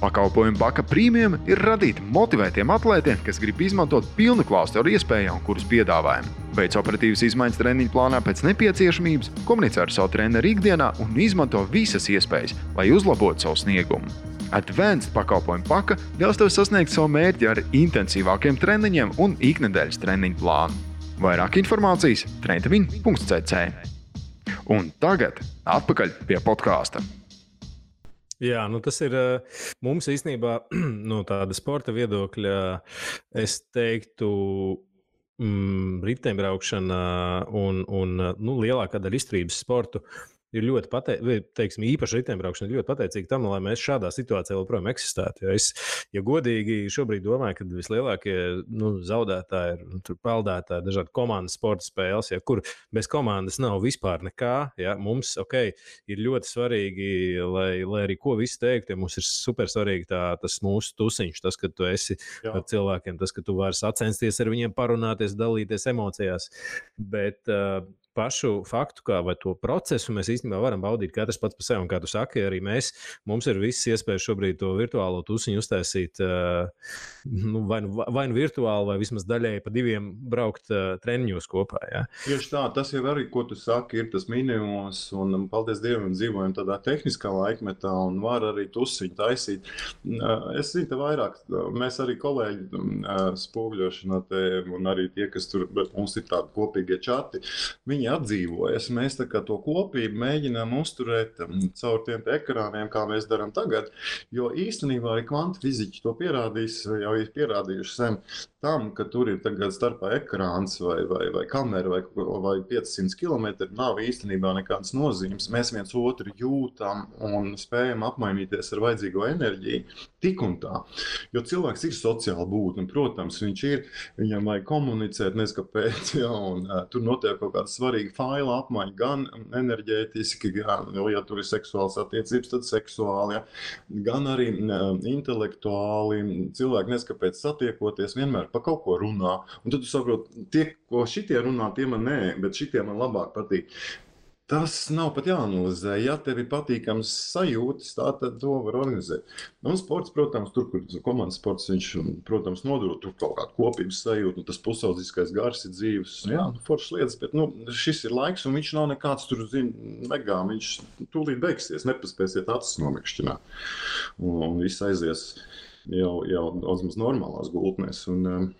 Pakalpojumu paka Premium ir radīta motivētiem atlētiem, kas grib izmantot pilnu klāstu ar iespējām, kuras piedāvājam. Veic operatīvas izmaiņas treniņu plānā pēc nepieciešamības, komunicē ar savu treneru ikdienā un izmanto visas iespējas, lai uzlabotu savu sniegumu. Advanced pakalpojumu paka ļaus tev sasniegt savu mērķi ar intensīvākiem treniņiem un iknedēļas treniņu plānu. Vairāk informācijas traintvin.cc. Un tagad atpakaļ pie podkāsta.
Jā, tas ir mums īstenībā no tāda sporta viedokļa, es teiktu, riteņbraukšana un lielākā daļa izturības sportu ir ļoti pateicīgi, īpaši riteņbraukšana ir ļoti pateicīga tam, lai mēs šādā situācijā joprojām eksistētu. Ja godīgi šobrīd domāju, ka vislielākie zaudētāji ir peldētāji, dažādi komandas sporta spēles, kur bez komandas nav vispār nekā. Ja, mums ir ļoti svarīgi, lai arī ko visi teiktu, ja mums ir super svarīgi tas mūsu tusiņš, tas, ka tu esi ar cilvēkiem, tas, ka tu vari sacensties ar viņiem, parunāties, dalīties emocijās. Bet pašu faktu, vai to procesu mēs īstenībā varam baudīt katrs pats par sevi. Un, kā tu saki, arī mums ir visas iespējas šobrīd to virtuālo tusiņu uztaisīt vai nu virtuāli, vai vismaz daļēji pa 2 braukt treniņos kopā. Ja?
Tieši tā, tas jau arī, ko tu saki, ir tas minimums, un paldies Dievam, dzīvojam tādā tehniskā laikmetā un var arī tusiņu taisīt. Es zinu, te vairāk, mēs arī kolēģi spoguļošanā te, un arī tie, kas tur, mums ir tādi kopīgie čati, viņi atdzīvojas. Mēs tā kā to kopību mēģinām uzturēt caur tiem ekrāniem, kā mēs darām tagad, jo īstenībā arī kvantu fiziķi to pierādīs, jau ir pierādījuši sen tam, ka tur ir tagad starpā ekrāns vai kamera vai 500 km, nav īstenībā nekādas nozīmes. Mēs viens otru jūtam un spējam apmainīties ar vajadzīgo enerģiju tik un tā. Jo cilvēks ir sociāli būtne, un, protams, viņam vajag komunicēt, neskapēc, un tur notiek kaut kāda svarīga faila apmaiņa, gan enerģētiski, gan, ja tur ir seksuāls attiecības, tad seksuāli, ja, gan arī intelektuāli. Cilvēki neskapēc satiekoties, vienmēr pa kaut ko runā. Un tad tu saproti, tie, ko šitie runā, tie man nē, bet šitie man labāk patīk. Tas nav pat jāanalizē. Ja tev ir patīkams sajūtas, tā tad to var organizēt. Un sports, protams, tur, kur komandas sports, viņš, protams, nodod tur kaut kādu kopības sajūtu, un tas pusaudzīskais gars ir dzīves. Jā, foršas lietas, bet šis ir laiks, un viņš nav nekāds tur, megā. Viņš tūlīt beigsies, nepaspēsiet acis nomikšķināt. Un viss aizies jau daudz normālās gultnēs. Un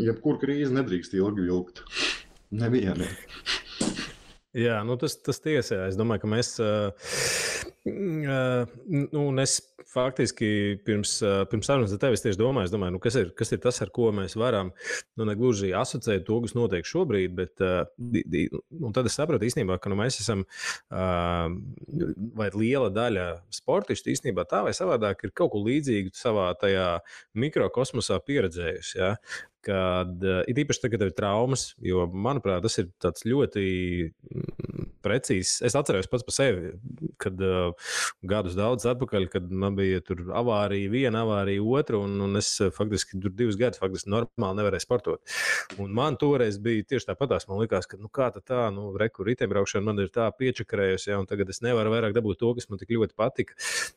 jebkur krīze nedrīkst ilgi vilkt. Nevienam.
Jā, tas tiesā. Es domāju, ka mēs, es faktiski pirms sarunas ar tevi tieši domāju, kas ir tas, ar ko mēs varam, negluži asociēt to, kas notiek šobrīd, bet tad es sapratu īstenībā, ka mēs esam, vai liela daļa sportistu īstenībā tā vai savādāk ir kaut ko līdzīgu savā tajā mikrokosmosā pieredzējusi, ja? Kad ir īpaši tagad ir traumas, jo, manuprāt, tas ir tāds ļoti precīzs. Es atceros pats par sevi, kad gadus daudz atpakaļ, kad man bija tur avārija, viena avārija, otra, un es faktiski tur 2 gadus faktiski normāli nevarēju sportot. Un man toreiz bija tieši tāpatās, man likās, ka kā tā, riteņbraukšana man ir tā piečakarējusi, ja, un tagad es nevaru vairāk dabūt to, kas man tik ļoti patika.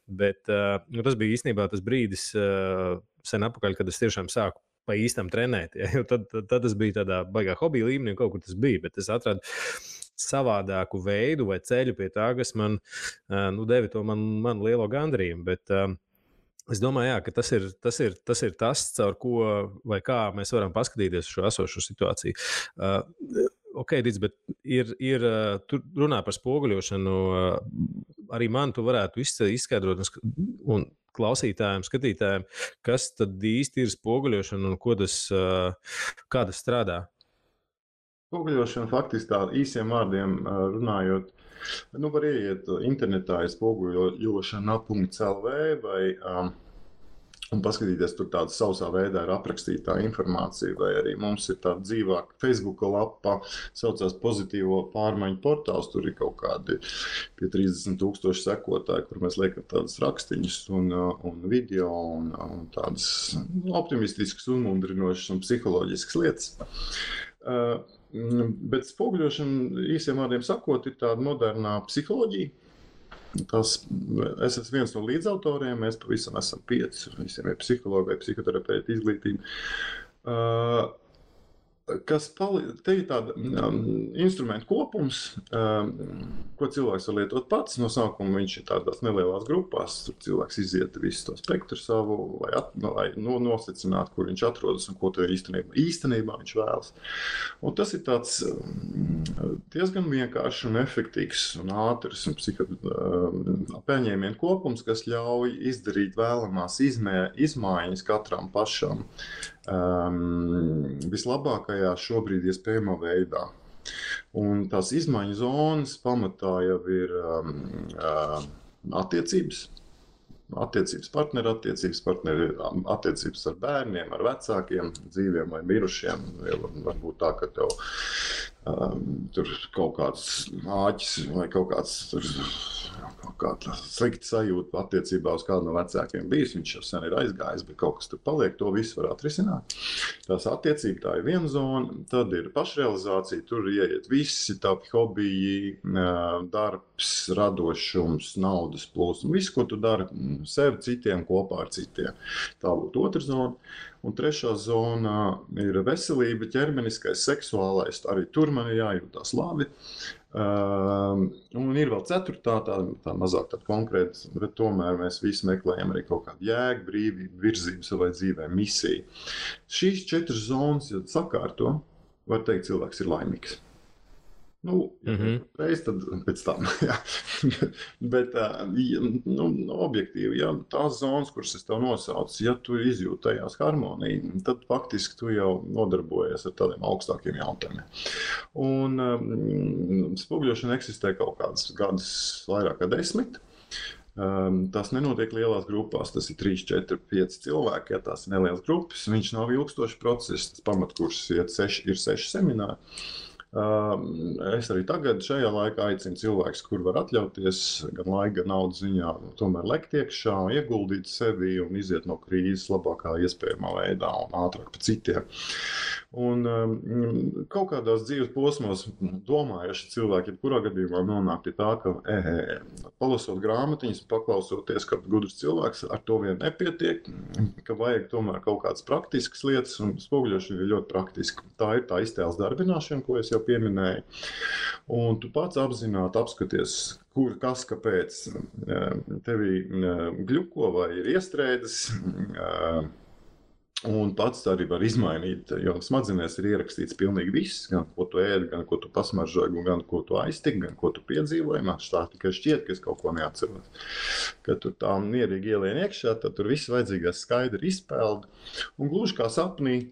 Bet tas bija īstenībā tas brīdis sen atpakaļ, kad es tiešām sāku pa īstam trenēt. Ja? Tad tas bija tādā baigā hobija līmenī, kaut kur tas bija, bet es atradu savādāku veidu vai ceļu pie tā, kas man deva to man lielo gandarījumu. Bet es domāju, jā, ka tas ir tas, caur ko vai kā mēs varam paskatīties šo esošo situāciju. Dic, bet ir tur runā par spoguļošanu. Arī man tu varētu izskaidrot un klausītājiem, skatītājiem, kas tad īsti ir spoguļošana un kā tas strādā?
Spoguļošana faktiski tā īsiem vārdiem runājot, var ieiet internetā spoguļošana.lv vai un paskatīties, tur tāda sausā veidā ir aprakstītā informācija, vai arī mums ir tāda dzīvāka Facebook lapa, saucās Pozitīvo pārmaiņu portāls, tur ir kaut kādi pie 30,000 sekotāji, kur mēs liekam tādas rakstiņas un video un tādas optimistiskas, uzmundrinošas un psiholoģiskas lietas. Bet spoguļošana, īsiem vārdiem sakot, ir tāda modernā psiholoģija. Es esmu viens no līdzautoriem, mēs pavisam esam 5, visiem ir psihologi vai psihoterapeiti izglītība. Te ir tāda instrumentu kopums, ko cilvēks var lietot pats. No sākuma viņš ir tādās nelielās grupās, tur cilvēks iziet visu to spektru savu, lai nosacinātu, kur viņš atrodas un ko īstenībā viņš vēlas. Un tas ir tāds diezgan vienkāršs un efektīvs un ātrs un pieņēmienu kopums, kas ļauj izdarīt vēlamās izmaiņas katram pašam vislabākajā šobrīd iespējamā veidā. Un tās izmaiņu zonas pamatā jau ir attiecības. Attiecības ar bērniem, ar vecākiem, dzīviem vai mirušiem. Varbūt tā, ka tev tur kaut kāds āķis vai kaut kāda slikta sajūta attiecībā uz kādu no vecākiem bijis. Viņš jau sen ir aizgājis, bet kaut kas tur paliek. To visu var atrisināt. Tās attiecības, tā ir viena zona. Tad ir pašrealizācija. Tur ieiet visi tavi hobiji, darbs, radošums, naudas plūsma. Viss, ko tu dari sev, citiem, kopā ar citiem. Tā būtu otra zona. Un trešā zona ir veselība, ķermeniskais, seksuālais. Arī tur man ir jājūtās labi. Un ir vēl ceturtā, tā mazāk tāda konkrēta, bet tomēr mēs visi meklējam arī kaut kādu jēgu, brīvību, virzību savai dzīvē, misiju. Šīs 4 zonas, ja sakārto, var teikt, cilvēks ir laimīgs. Reiz tad pēc tam, jā. Bet objektīvi, ja tās zonas, kuras es tev nosaucu, ja tu izjūti tajās harmoniju, tad faktiski tu jau nodarbojies ar tādiem augstākiem jautājumiem. Un spoguļošana eksistē kaut kādus gadus vairāk kā 10. Tas nenotiek lielās grupās, tas ir 3, 4, 5 cilvēki, ja tās ir nelielas grupas, viņš nav ilgstošs process, tas pamatkurs ir 6 semināri. Es arī tagad šajā laikā aicinu cilvēkus, kur var atļauties gan laika, gan naudas ziņā, tomēr lekt iekšā, ieguldīt sevi un iziet no krīzes labākā iespējamā veidā un ātrāk pa citiem. Un kaut kādās dzīves posmos domājuši cilvēki, kurā gadījumā nonāk pie tā, ka palasot grāmatiņas, paklausoties, ka gudrs cilvēks ar to vien nepietiek, ka vajag tomēr kaut kādas praktiskas lietas, un spoguļošana ir ļoti praktiska. Tā ir tā iztēles darbināšana, ko es jau pieminēju. Un tu pats apzināti apskaties, kur, kas, kāpēc tevi gļuko vai ir iestrēdes, un pats arī var izmainīt, jo smadzenēs ir ierakstīts pilnīgi viss, gan ko tu ēdi, gan ko tu pasmaržoji, gan ko tu aiztiki, gan ko tu piedzīvoji. Man tā tikai šķiet, ka es kaut ko neatceros. Kad tu tā mierīgi ielien iekšā, tad tur viss vajadzīgais skaidri izpeld. Un gluži kā sapnī,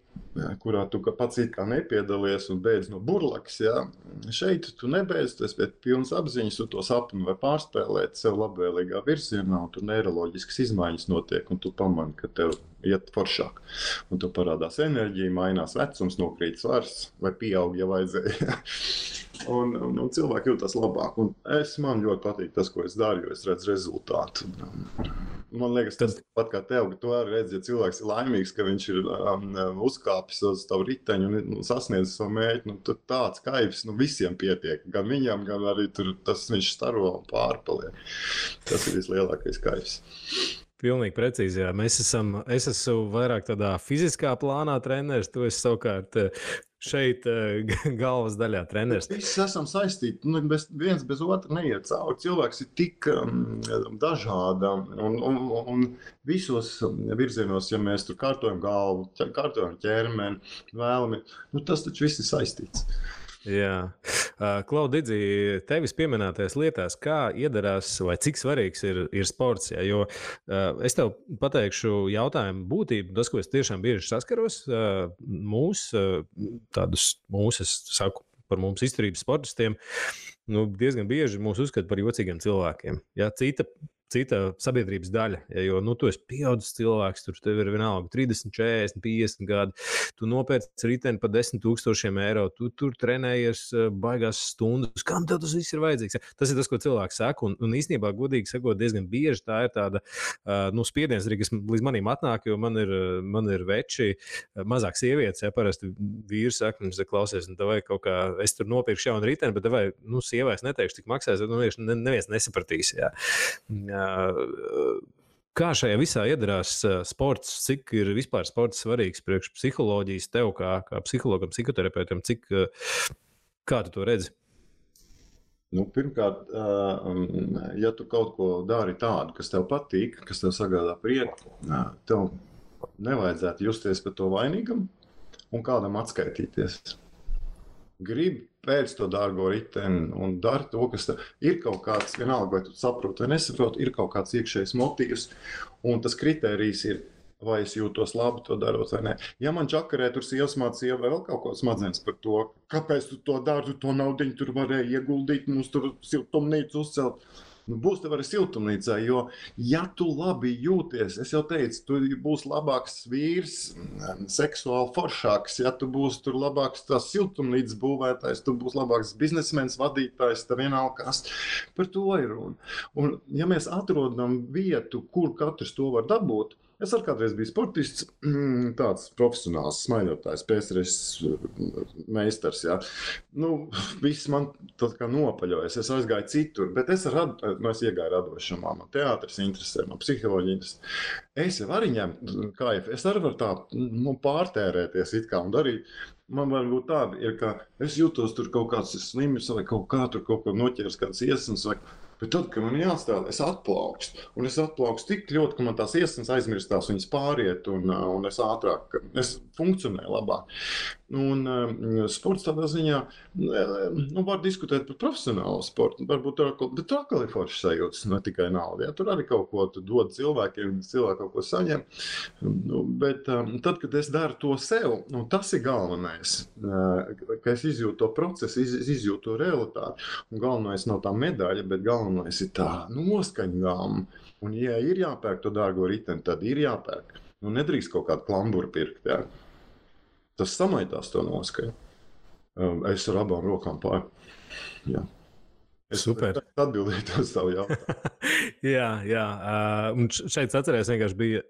kurā tu pats it kā nepiedalies un beidz no burlakas, ja? Šeit tu nebeidz, tu esi pēc pilnas apziņas, tu to sapni var pārspēlēt sev labvēlīgā virzienā, un tur neiroloģiskas izmaiņas notiek, un tu pamani, ka tev iet foršāk. Un tu parādās enerģija, mainās vecums, nokrīt svars vai pieaug, ja vajadzēja. Un cilvēki jūtas labāk. Un man ļoti patīk tas, ko es daru, jo es redzu rezultātu. Man liekas, tas pat kā tev, ka tu arī redzi, ja cilvēks ir laimīgs, ka viņš ir uzkāpis uz tavu riteņu un sasniedz savu mērķi, tad tāds kaifs visiem pietiek. Gan viņam, gan arī tur tas viņš staro un pārpaliek. Tas ir vislielākais kaifs.
Pilnīgi precīzi, jā. Es esmu vairāk tādā fiziskā plānā treneris, tu esi savukārt šeit galvas daļā treneris.
Visi esam saistīti, viens bez otra neiet cauri. Cilvēks ir tik dažāda un visos virzienos, ja mēs tur kārtojam galvu, kārtojam ķermeni, vēlami, tas taču viss ir saistīts.
Jā. Klau, Didzi, tevis pieminētajās lietās, kā iedarās vai cik svarīgs ir sports? Jā? Jo es tev pateikšu jautājumu būtību, tas, ko es tiešām bieži saskaros, es saku par mums izturības sportistiem, diezgan bieži mūs uzskata par jocīgiem cilvēkiem. Jā, cita sabiedrības daļa, jo tu esi pieaudzis cilvēks, tur tev ir vienalga 30, 40, 50 gadi, tu nopērci riteni par 10,000 eiro, tu tur trenējies baigās stundas, kam tev tas viss ir vajadzīgs? Tas ir tas, ko cilvēks saka, un īstenībā, godīgi sakot, diezgan bieži tā ir tāda spiediens arī, kas līdz manim atnāk, jo man ir veči, mazāk sievietes, ja parasti vīrs saka, klausies, vai kaut kā, es tur nopirkšu jaunu riteni, bet vai, sievais neteikšu, cik maksās, neviens nesapratīs, jā. Kā šajā visā iedarās sports, cik ir vispār sports svarīgs priekš psiholoģijas tev kā psihologam, psihoterapeutam, kā tu to redzi?
Pirmkārt, ja tu kaut ko dari tādu, kas tev patīk, kas tev sagādā prieku, tev nevajadzētu justies par to vainīgam un kādam atskaitīties. Gribi pēc to dārgo riteni un dari to, kas ir kaut kāds, vienalga, vai tu saproti vai nesaproti, ir kaut kāds iekšējs motīvs, un tas kritērijs ir vai es jūtos labi to darot vai nē. Ja man čakarē tur sievas mācīja vai vēl kaut ko smadzenes par to, kāpēc tu to dari, tu to naudiņu tur varēji ieguldīt, mums tur siltumnīcu uzcelt. Būs tev arī siltumnīcā, jo, ja tu labi jūties, es jau teicu, tu būsi labāks vīrs, seksuāli foršāks, ja tu būsi tur labāks tās siltumnīcas būvētājs, tu būsi labāks biznesmenis, vadītājs, tā vienalga kas. Par to ir runa. Un ja mēs atrodam vietu, kur katrs to var dabūt, es arī kādreiz biju sportists, tāds profesionāls smaidotājs, PSRS meistars, jā. Viss man tā kā nopaļojas, es aizgāju citur, bet es iegāju radošumā, man teātris interesē, man psiholoģija interesē. Es jau arī ņemu kaifu, es arī varu tā pārtērēties it kā un darīt. Man varbūt tāda ir, ka es jūtos tur kaut kāds slims vai kaut kā tur kaut ko noķers kāds iesnas vai... Bet tad, kad man jāstāv, es atplaukstu. Un es atplaukstu tik ļoti, ka man tās iesnas aizmirstās, viņas pāriet un es ātrāk, es funkcionēju labāk. Un sports tādā ziņā, var diskutēt par profesionālu sportu, varbūt bet tur atkal ir foršas sajūtas, ne tikai nauda. Ja? Tur arī kaut ko dod cilvēkiem, cilvēki kaut ko saņem. Bet tad, kad es daru to sev, tas ir galvenais, ka es izjūtu to procesu, izjūtu to realitāti. Un galvenais nav tā medaļa, bet galvenais ir tā noskaņgāma. Un, ja ir jāpērk to dārgo riteni, tad ir jāpērk. Nedrīkst kaut kādu klamburu pirkt. Ja? Tas samaitās to noskaņu. Es ar abām rokām pār. Jā. Es
super.
Atbildēju uz savu jautājumu.
jā. Un šeit atcerēs vienkārši bija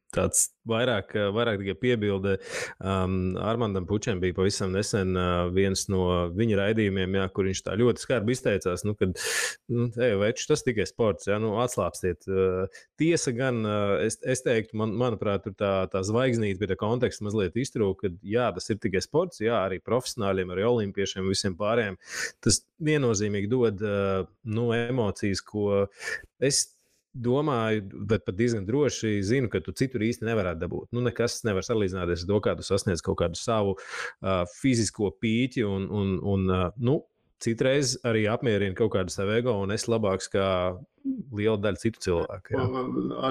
tāds vairāk tikai piebilde. Armandam Pučem bija pavisam nesen viens no viņa raidījumiem, jā, kur viņš tā ļoti skarbi izteicās, kad veči, tas tikai sports, jā, atslāpstiet. Tiesa gan, es teiktu, manuprāt, tur tā zvaigznīte pie tā konteksta mazliet iztrūk, ka jā, tas ir tikai sports, jā, arī profesionāļiem, arī olimpiešiem, visiem pārējiem. Tas viennozīmīgi dod emocijas, ko es domāju, bet pat diezgan droši zinu, ka tu citur īsti nevarētu dabūt. Nekas nevar salīdzināties ar to, kā tu sasniedz kaut kādu savu fizisko pīķi un citreiz arī apmierina kaut kādu savu ego un es labāks kā liela daļa citu cilvēku. Jā.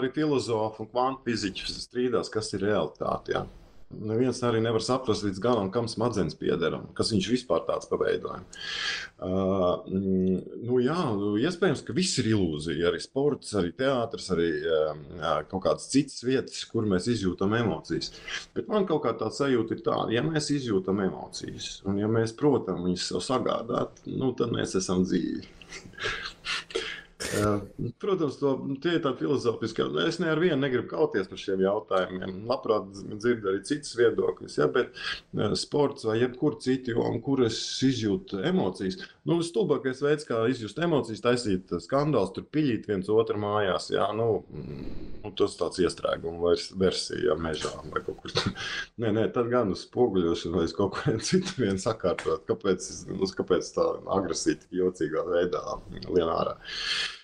Arī filozofi un kvantfiziķi strīdās, kas ir realitāte. Jā. Neviens arī nevar saprast līdz galam, kam smadzenes pieder, kas viņš vispār tāds paveidoja. Iespējams, ka viss ir ilūzija, arī sports, arī teātris, arī kaut kādas citas vietas, kur mēs izjūtam emocijas. Bet man kaut kā tā sajūta ir tāda, ja mēs izjūtam emocijas, un ja mēs, protams, viņas sev sagādāt, tad mēs esam dzīvi. Protams, tie ir tādi filozofiski. Es ar vienu negribu kauties par šiem jautājumiem. Labprāt dzirdu arī citas viedokļus, ja, bet sports vai jebkur citi, kur es izjūtu emocijas. Stulbākais veids, kā izjust emocijas, taisīt skandāls, tur piļīt viens otru mājās. Ja, tas tāds iestrēguma versija mežā vai kaut kur. Nē, tad gan uz spoguļošanu vai uz kaut kurien citu vien sakārtot. Kāpēc tā agresija tik jocīgā veidā lien ārā?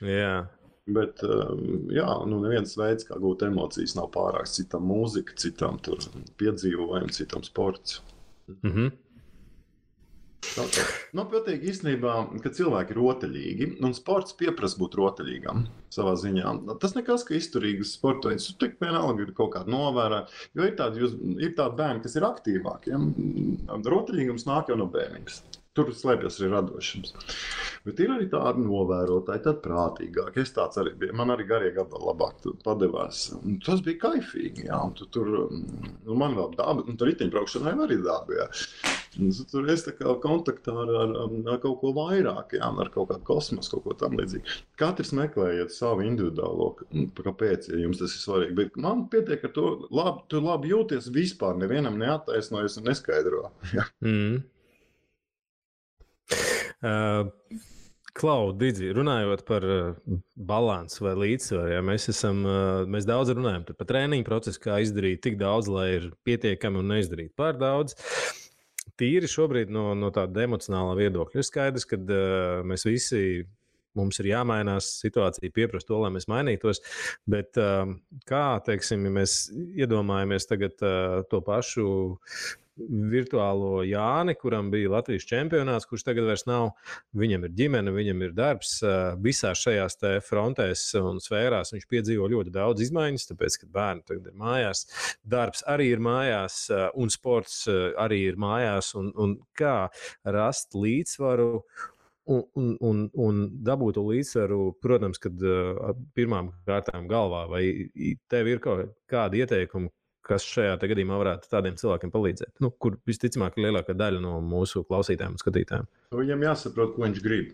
Jā.
Bet, neviens veids, kā gūt emocijas, nav pārāks. Citam mūzika, citam tur piedzīvojumi, citam sports.
Mhm.
Patīk īstenībā, ka cilvēki ir rotaļīgi, un sports pieprasa būt rotaļīgam savā ziņā. Tas nekas, ka izturīgs sporta veids, tu tik vienalga ir kaut kāda novērā, jo ir tādi bērni, kas ir aktīvāki. Ja? Rotaļīgums nāk jau no bērnības. Tur slēpjas arī radošums. Bet ir arī tādi novērotāji, tad prātīgāki. Es tāds arī biju. Man arī garie gabali labāk devās. Tas bija kaifīgi. Jā. Tur man vēl daba, tur riteņbraukšanai arī daba. Jā. Tur es tā kā kontaktā ar kaut ko vairāk, jā, ar kaut kādu kosmosu, kaut ko tam līdzīgi. Katrs meklējiet savu individuālo, kāpēc, ja jums tas ir svarīgi. Bet man pietiek ar to, tu labi jūties vispār, nevienam neattaisnojas un neskaidro. Jā.
Klau, Didzi, runājot par balansu vai līdzsvaru, ja, mēs daudz runājam par treniņu procesu, kā izdarīt tik daudz, lai ir pietiekami un neizdarīt pār daudz. Tīri šobrīd no tāda emocionālā viedokļa ir skaidrs, ka mēs visi, mums ir jāmainās, situācija pieprasa to, lai mēs mainītos, bet kā, teiksim, ja mēs iedomājamies tagad to pašu virtuālo Jāni, kuram bija Latvijas čempionāts, kurš tagad vairs nav. Viņam ir ģimene, viņam ir darbs. Visās šajās frontēs un sfērās viņš piedzīvo ļoti daudz izmaiņas, tāpēc, ka bērni tagad ir mājās, darbs arī ir mājās un sports arī ir mājās. Un kā rast līdzsvaru un dabūt to līdzsvaru, protams, kad pirmām kārtām galvā, vai tev ir kaut kādi ieteikumi, kas šajā gadījumā varētu tādiem cilvēkiem palīdzēt, kur visticamāk ir lielākā daļa no mūsu klausītājiem un skatītājiem?
Viņam jāsaprot, ko viņš grib.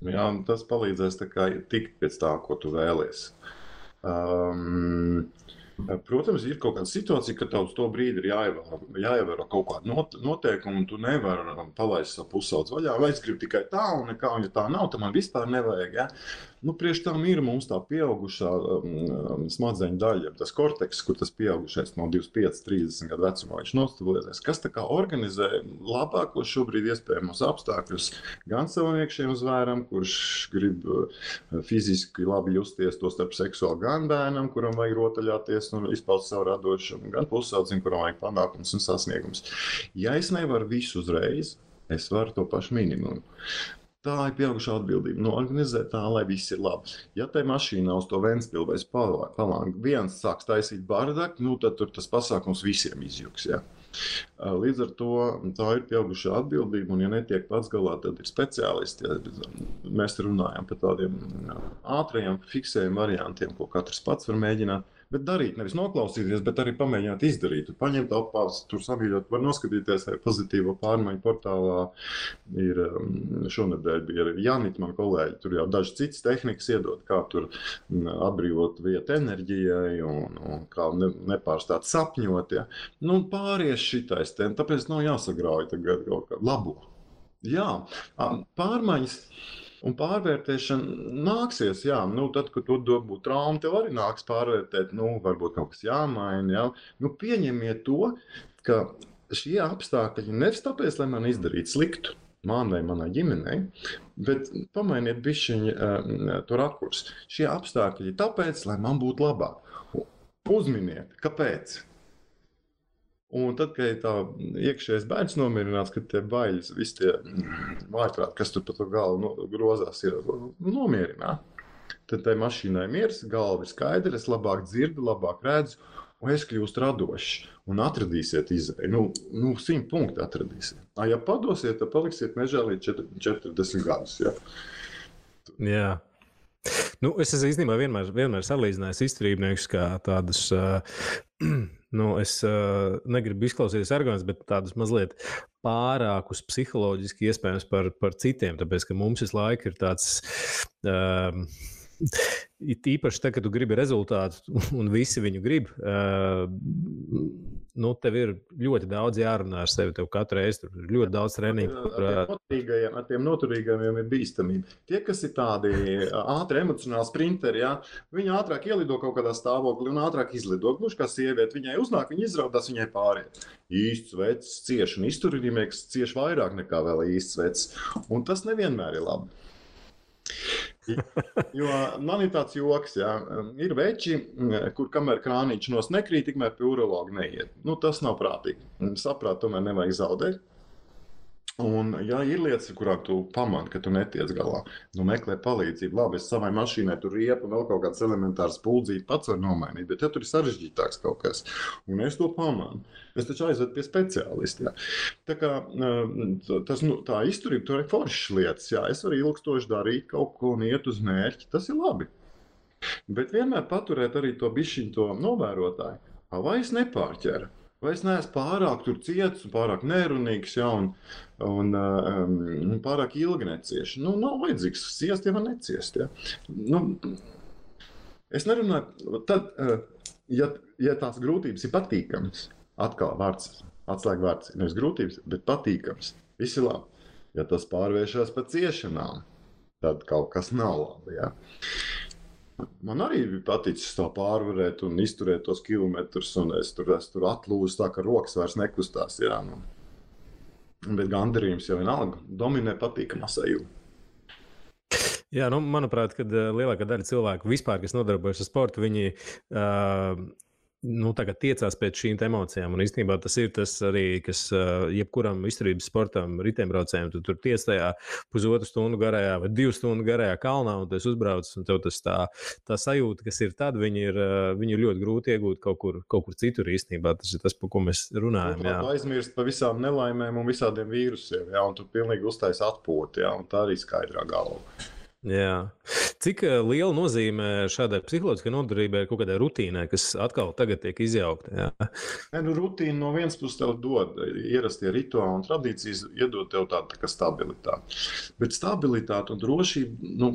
Jā, tas palīdzēs tikt pēc tā, ko tu vēlies. Protams, ir kaut kāda situācija, ka tev uz to brīdi ir jāievēro kaut kāda noteikuma, un tu nevari palaist savu pusaudzi vaļā, vai es gribu tikai tā, un nekā, un ja tā nav, tad man vispār nevajag. Ja? Priekš tam ir mums tā pieaugušā smadzeņu daļa, tas korteks, kur tas pieaugušais no 25, 30 gadu vecumā viņš nostabilizēs, kas tā kā organizē labākos šobrīd iespējamos apstākļus gan savam iekšējiem zvēram, kurš grib fiziski labi justies, to starp seksuāli gan bērnam, kuram vajag rotaļāties un izpaust savu radošumu, gan pusaudzim, kuram vajag panākums un sasniegums. Ja es nevaru visu uzreiz, es varu to pašu minimumu. Tā ir pieaugušā atbildība. Organizēt tā, lai viss ir labi. Ja tai mašīnā uz to Ventspilu vai Palānu viens sāks taisīt bardaku, tad tur tas pasākums visiem izjuks. Ja? Līdz ar to tā ir pieaugušā atbildība, un ja netiek pats galā, tad ir speciālisti. Ja? Mēs runājam par tādiem ātrajiem, fiksējiem variantiem, ko katrs pats var mēģināt. Bet darīt, nevis noklausīties, bet arī pamēģināt izdarīt. Tu paņemt apās, tur samīļot, var noskatīties, vai pozitīvo pārmaiņu portālā ir šonedēļ bija arī Janita, man kolēģi, tur jau dažas citas tehnikas iedod, kā tur atbrīvot vietu enerģijai un kā nepārstāt sapņot. Ja? Pāries šitais, tāpēc nav jāsagrauj tagad kaut kā labo. Jā, pārmaiņas. Un pārvērtēšana nāksies, jā, tad, kad tu būtu trauma, tev arī nāks pārvērtēt, varbūt kaut kas jāmaina, jā. Pieņemiet to, ka šie apstākļi nevis tāpēc, lai man izdarītu sliktu, man vai manai ģimenei, bet pamainiet bišķiņi to rakursu. Šie apstākļi tāpēc, lai man būtu labāk. Uzminiet, kāpēc? Un tad, kad tā iekšējais bērns nomierināts, kad tie baiļas, visi tie vājprāti, kas tur pa to galvu grozās, ir nomierināt. Tad tai mašīnai miers, galva ir skaidra, es labāk dzirdu, labāk redzu, un es kļūstu radošs. Un atradīsiet izēju. 100 punkti atradīsiet. Ja padosiet, tad paliksiet mežā līdz 40 gadus. Ja?
Jā. Es esmu īstenībā vienmēr salīdzinājis izturībniekus kā tādus, es negribu izklausīties arogants, bet tādus mazliet pārākus psiholoģiski iespējams par citiem, tāpēc, ka mums visu laiku ir tāds, īpaši tad, kad tu gribi rezultātu un visi viņu grib, tev ir ļoti daudz jārunā ar sevi, tev katru reizi tur ir ļoti daudz treniņu.
Ar tiem noturīgajiem ir bīstamība. Tie, kas ir tādi ātri emocionāli sprinteri, ja, viņi ātrāk ielido kaut kādā stāvoklī un ātrāk izlido. Gluži kā sieviete, viņai uznāk, viņa izraudās, viņai pāriet. Īsts vecs cieš un izturīgnieks cieš vairāk nekā vēl īsts vecs. Un tas nevienmēr ir labi. Jo man ir tāds joks, ja, ir veči, kur kamēr krānīši nos nekrīt, tikmēr pie urologa neiet. Tas nav prātīgi. Saprāt, tomēr nevajag zaudēt. Un, ja ir lietas, kurām tu pamani, ka tu netiec galā, meklē palīdzību. Labi, es savai mašīnai tur riepu vēl kaut kāds elementārs puldzīti pats var nomainīt, bet ja tur ir sarežģītāks kaut kas, un es to pamanu, es taču aizvedu pie speciālista. Tā kā tā izturība, tur ir foršas lietas. Jā, es varu ilgstoši darīt kaut ko un iet uz mērķi, tas ir labi. Bet vienmēr paturēt arī to bišķiņu to novērotāju. Vai es nepārķeru? Vai es neesmu pārāk tur ciets un pārāk nerunīgs, ja, un pārāk ilgi necieši? Nav vajadzīgs ciest, ja man neciest. Ja. Es nerunāju, tad, ja tās grūtības ir patīkams, atkal vārds, atslēga vārds, nevis grūtības, bet patīkams, viss ir labi. Ja tas pārvēršas par ciešanām, tad kaut kas nav labi. Ja. Man arī bija paticis to pārvarēt un izturēt tos kilometrus, un es tur atlūzu tā, ka rokas vairs nekustās. Jā, Bet gandarījums jau vienalga dominē patīkamā sajūta.
Jā, manuprāt, kad lielākā daļa cilvēku vispār, kas nodarbojas ar sportu, viņi tagad tiecās pēc šīm emocijām. Un īstenībā tas ir tas arī, kas jebkuram izturības sportam, riteņbraucējiem, tu tur tiec tajā pusotru stundu garajā vai 2 stundu garajā kalnā, un tu esi uzbraucis, un tev tas tā sajūta, kas ir tad, viņi ir ļoti grūti iegūt kaut kur citur īstenībā. Tas ir tas, par ko mēs runājam.
Tu aizmirst par visām nelaimēm un visādiem vīrusiem, jā, un tu pilnīgi uztais atpūti, jā, un tā arī skaidrā galva.
Jā. Cik liela nozīme šādai psiholoģiskai noturībai ir kaut kādai rutīnai, kas atkal tagad tiek izjaukta?
Rutīna no vienas puses tev dod ierastie rituāli un tradīcijas, iedod tev tādu tā kā stabilitāti. Bet stabilitāte un drošība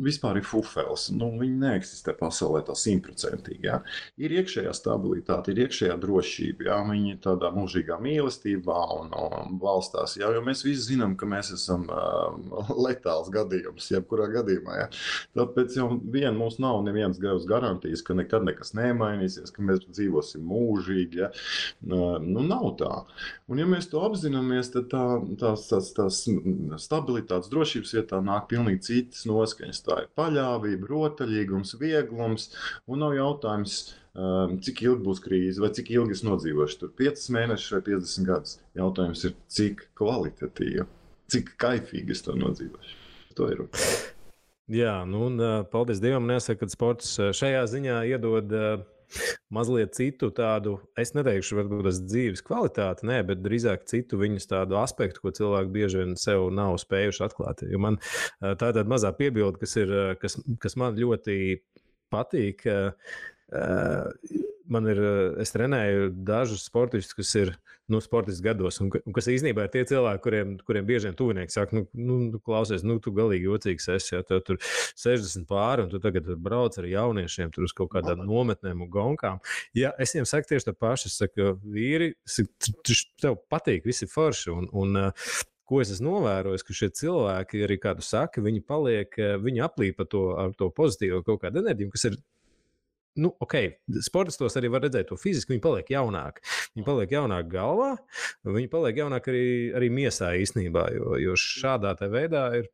vispār ir fufels. Viņi neeksistē pasaulē tā 100%. Jā. Ir iekšējā stabilitāte, ir iekšējā drošība. Jā. Viņi ir tādā mūžīgā mīlestībā un valstās. Jā. Jo mēs visi zinām, ka mēs esam letāls gadījums, jebkurā gadījumā. Ja? Tāpēc jau mums nav nevienas garantijas, ka nekad nekas nemainīsies, ka mēs dzīvosim mūžīgi. Ja? Nav tā. Un ja mēs to apzināmies, tad tās stabilitātes drošības vietā nāk pilnīgi citas noskaņas. Tā ir paļāvība, rotaļīgums, vieglums, un nav jautājums, cik ilgi būs krīze vai cik ilgi es nodzīvošu tur 5 mēnešus vai 50 gadus. Jautājums ir, cik kvalitatīvi, cik kaifīgi es to nodzīvošu. To ir.
Jā, un paldies Dievam, nesaka, ka sports šajā ziņā iedod mazliet citu tādu, es neteikšu, varbūt tas dzīves kvalitāti, bet drīzāk citu viņus tādu aspektu, ko cilvēki bieži vien sev nav spējuši atklāt. Jo man tā ir tāda mazā piebilde, kas man ļoti patīk. Es trenēju dažus sportistus, kas ir sportisti gados, un kas īstenībā ir tie cilvēki, kuriem bieži vien tuvinieki saka, klausies, tu galīgi jocīgs esi, ja tev tur 60 pāri, un tu tagad brauc ar jauniešiem tur uz kaut kādām nometnēm un gonkām. Ja, es viņiem saku tieši to pašu, es saku, vīri, tev patīk, visi forši, un ko es esmu novērojis, ka šie cilvēki, arī kādu saka, viņi aplīpa ar to pozitīvo kaut kādu enerģiju, kas ir sportistos arī var redzēt to fiziski, viņi paliek jaunāki. Viņi paliek jaunāki galvā, viņi paliek jaunāki arī miesā īstenībā, jo šādā te veidā ir,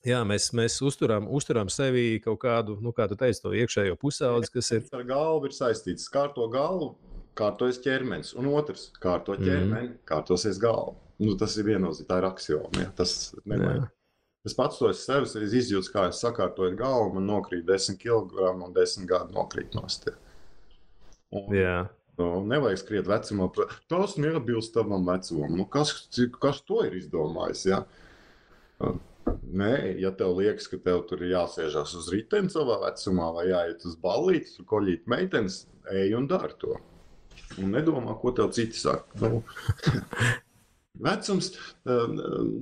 jā, mēs uzturam sevi kaut kādu, kā tu teici, to iekšējo pusaudzi, kas ir.
Ar galvu ir saistīts, kārto galvu, kārtojas ķermenis, un otrs, kārto ķermeni, kārtosies galvu. Tas ir viennozīmīgi, tā ir aksioma, ja, tas nemainās. Es pats to sevi izjūtu, kā es sakārtoju galvu, man nokrīt 10 kg un 10 gadu nokrīt nost. Nevajag skriet vecumā. Tas neatbilst tavam vecumam. Kas to ir izdomājis? Ja? Nē, ja tev liekas, ka tev tur ir jāsēžās uz riteni savā vecumā vai jāiet uz ballīti, tur koļīt meitenes, ej un dari to. Un nedomā, ko tev citi saka. Vecums,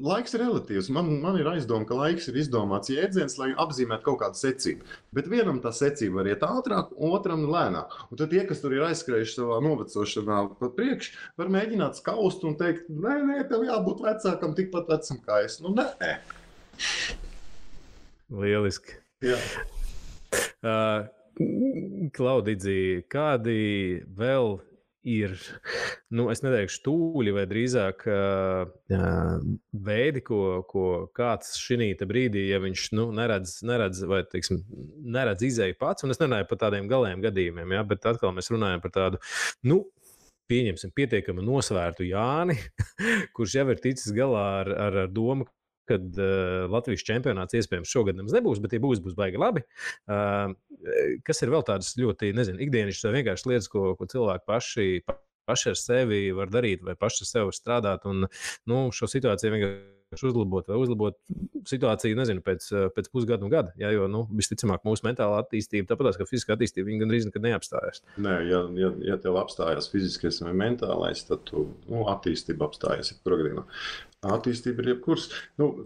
laiks ir relatīvs. Man ir aizdoma, ka laiks ir izdomāts jēdziens, lai apzīmētu kaut kādu secību. Bet vienam tā secība var iet ātrāk, otram lēnāk. Un tad tie, kas tur ir aizskrējuši savā novecošanā pat priekš, var mēģināt skaust un teikt, nē, tev jābūt vecākam tikpat vecam kā es. Nē.
Lieliski.
Jā.
Klaudidzi, kādi vēl ir, es neteikšu tūļi vai drīzāk veidi, ko kāds šī brīdī, ja viņš neredz vai, teiksim, neredz izēju pats, un es nerunāju par tādiem galējiem gadījumiem, ja, bet atkal mēs runājam par tādu, pieņemsim pietiekami nosvērtu Jāni, kurš jau ir ticis galā ar domu, kad Latvijas čempionāts iespējams šogad nemaz nebūs, bet ja būs baigi labi. Kas ir vēl tādas ļoti, ikdienišķas vai vienkārši lietas, ko cilvēki paši ar sevi var darīt vai paši ar sevi var strādāt un šo situāciju vienkārši uzlabot situāciju, pēc pusgada un gada. Ja, jo, visticamāk, mūsu mentālā attīstība, tāpatās, ka fiziskā attīstība, viņa gandrīz nekad neapstājās.
Nē, ja tev apstājās fiziskais vai mentālais, tad attīstība apstājās jebkurā. Attīstība ir jebkuras.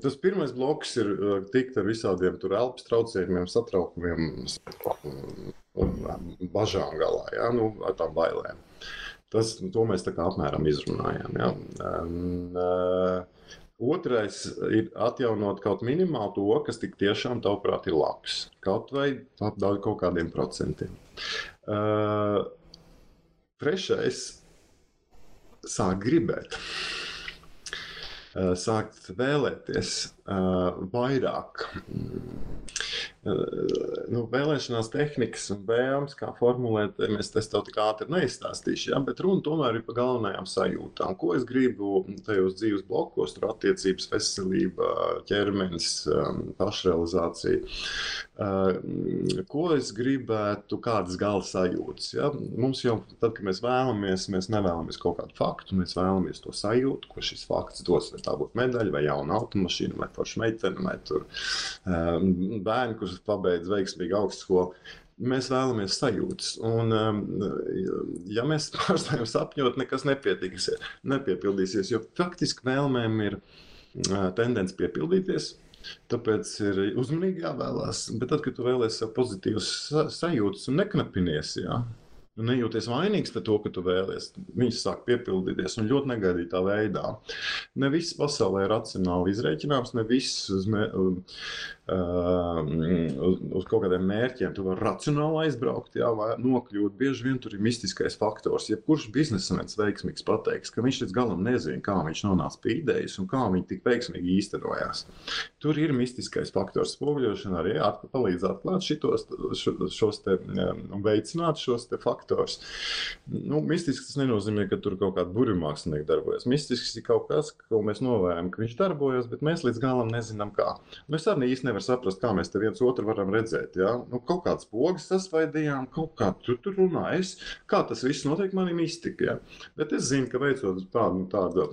Tas pirmais bloks ir tikt ar visādiem elpas traucējumiem, satraukumiem un bažām galā, ja? Ar tām bailēm. To mēs tā kā apmēram izrunājām. Ja? Otrais ir atjaunot kaut minimāli to, kas tik tiešām tavuprāt ir labs. Kaut vai kaut kādiem procentiem. Trešais - sāk gribēt. Sākt vēlēties vairāk. vēlēšanās tehnikas un vēlmes, kā formulēt, es tev tik ātri neizstāstīšu, ja? Bet runa tomēr ir par galvenajām sajūtām. Ko es gribu tajos dzīves blokos, tur attiecības, veselība, ķermenis, pašrealizācija. Ko es gribētu, kādas gala sajūtas. Ja? Mums jau, tad, kad mēs nevēlamies kaut kādu faktu, mēs vēlamies to sajūtu, ko šis fakts dos. Vai tā būtu medaļa, vai jauna automašīna, vai forša meitene, vai tur bērni, kurš pabeidz veiksmīgi augstskolu. Mēs vēlamies sajūtas. Un, ja mēs pārstājam sapņot, nekas nepiepildīsies, jo faktiski vēlmēm ir tendence piepildīties. Tāpēc ir uzmanīgi jāvēlās. Bet tad, kad tu vēlies sev pozitīvas sajūtas un neknapinies, jā, un nejūties vainīgs par to, ka tu vēlies, viņš sāk piepildīties un ļoti negaidītā veidā. Ne viss pasaulē ir racionāli izrēķināms, ne viss uz kaut kādiem mērķiem tu vari racionāli aizbraukt, jā, vai nokļūt. Bieži vien tur ir mistiskais faktors. Jebkurš biznesmenis veiksmīgs pateiks, ka viņš līdz galam nezina, kā viņš nonāca pie idejas un kā viņi tik veiksmīgi īstenojās. Tur ir mistiskais faktors. Spoguļošana arī palīdz atklāt šos te un veicināt šos te faktors. Mistisks tas nenozīmē, ka tur kaut kāda burvimākslinieka darbojas. Mistisks ir kaut kas, ko mēs novērojam, ka viņš darbojas, bet mēs līdz galam nezinām kā. Mēs arī īsti nevar saprast, kā mēs te viens otru varam redzēt. Ja? Kaut kāds pogas sasvaidījām, kaut kā tur runājas. Kā tas viss notiek, man ir mistika. Ja? Bet es zinu, ka veicot tādu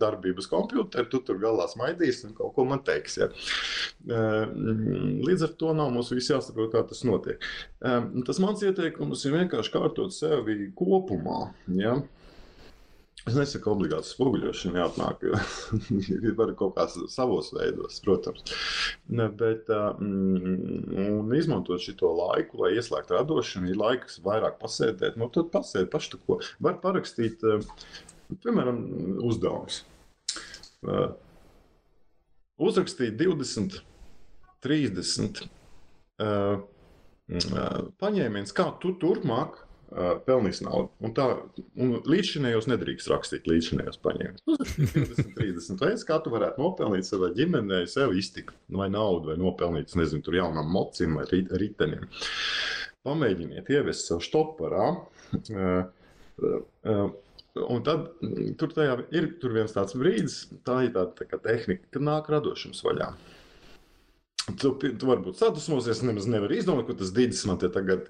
darbības kompjuteri, tu tur galā smaidīs un kaut ko man teiks. Ja? Līdz ar to nav mums viss jāsaprot, kā tas notiek. Tas mans ieteikums ir vienkārši kārtot sevi kopumā. Ja? Es nesaku obligāti spoguļošana jāatnāk, jo var kaut kā savos veidos, protams. Bet un izmantot šito laiku, lai ieslēgtu radošanu, ir laiks vairāk pasēdēt. Tad pasēd paši ko. Var parakstīt, piemēram, uzdevumus. Uzrakstīt 20, 30 paņēmiens, kā tu turpmāk pelnīs naudu. Un līdzšinējos nedrīkst rakstīt līdzšinējos paņēmienus. 20, 30 veids, kā tu varētu nopelnīt savai ģimenei, sev iztiku, vai naudu, vai nopelnīt, nezinu, tur jaunam mocim vai ritenim. Pamēģiniet ievest sev štoparā. Un tad tur viens tāds brīdis, tā ir tāda kā tehnika, kad nāk radošums vaļā. Tu varbūt sadusmosies, nemaz nevar izdomāt, ko tas dīdis man te tagad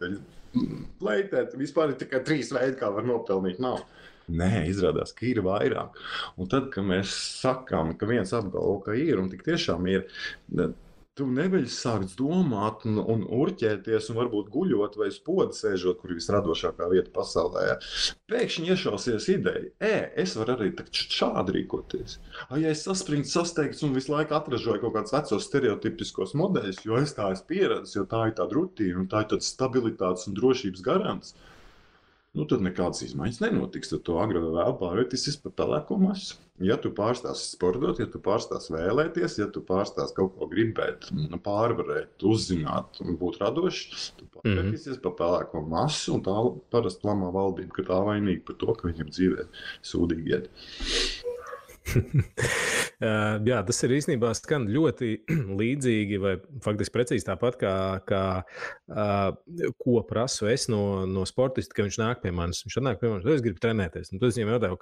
leitēt. Vispār ir tikai 3 veidi, kā var nopelnīt naudu. Nē, izrādās, ka ir vairāk. Un tad, kad mēs sakām, ka viens apgalvo, ka ir, un tik tiešām ir, tu neveļ sākt domāt un urķēties un varbūt guļot vai uz poda sēžot, kur ir visradošākā vieta pasaulē. Pēkšņi iešausies ideja, es varu arī šādi rīkoties. Ja es saspringtu, sasteigts un visu laiku atražoju kaut kādus vecos stereotipiskos modeļus, jo es tā esmu pieredzis, jo tā ir tāda rutīna un tā ir tāds stabilitātes un drošības garants, tad nekādas izmaiņas nenotiks. Tad to agri vai vēl pārvērtīsies par pelēko masu. Ja tu pārstāsi sportot, ja tu pārstāsi vēlēties, ja tu pārstāsi kaut ko gribēt, pārvarēt, uzzināt un būt radošs, tu pārvērtīsies par pelēko masu, un tā parasti lamā valdība, ka tā vainīga par to, ka viņam dzīvē sūdīgi iet.
Jā, tas ir īstenībā skan ļoti līdzīgi vai faktiski precīzi tāpat, kā ko prasu es no sportista, ka viņš nāk pie manis. Viņš nāk pie manis, es gribu trenēties. Un tad es viņam jautāju,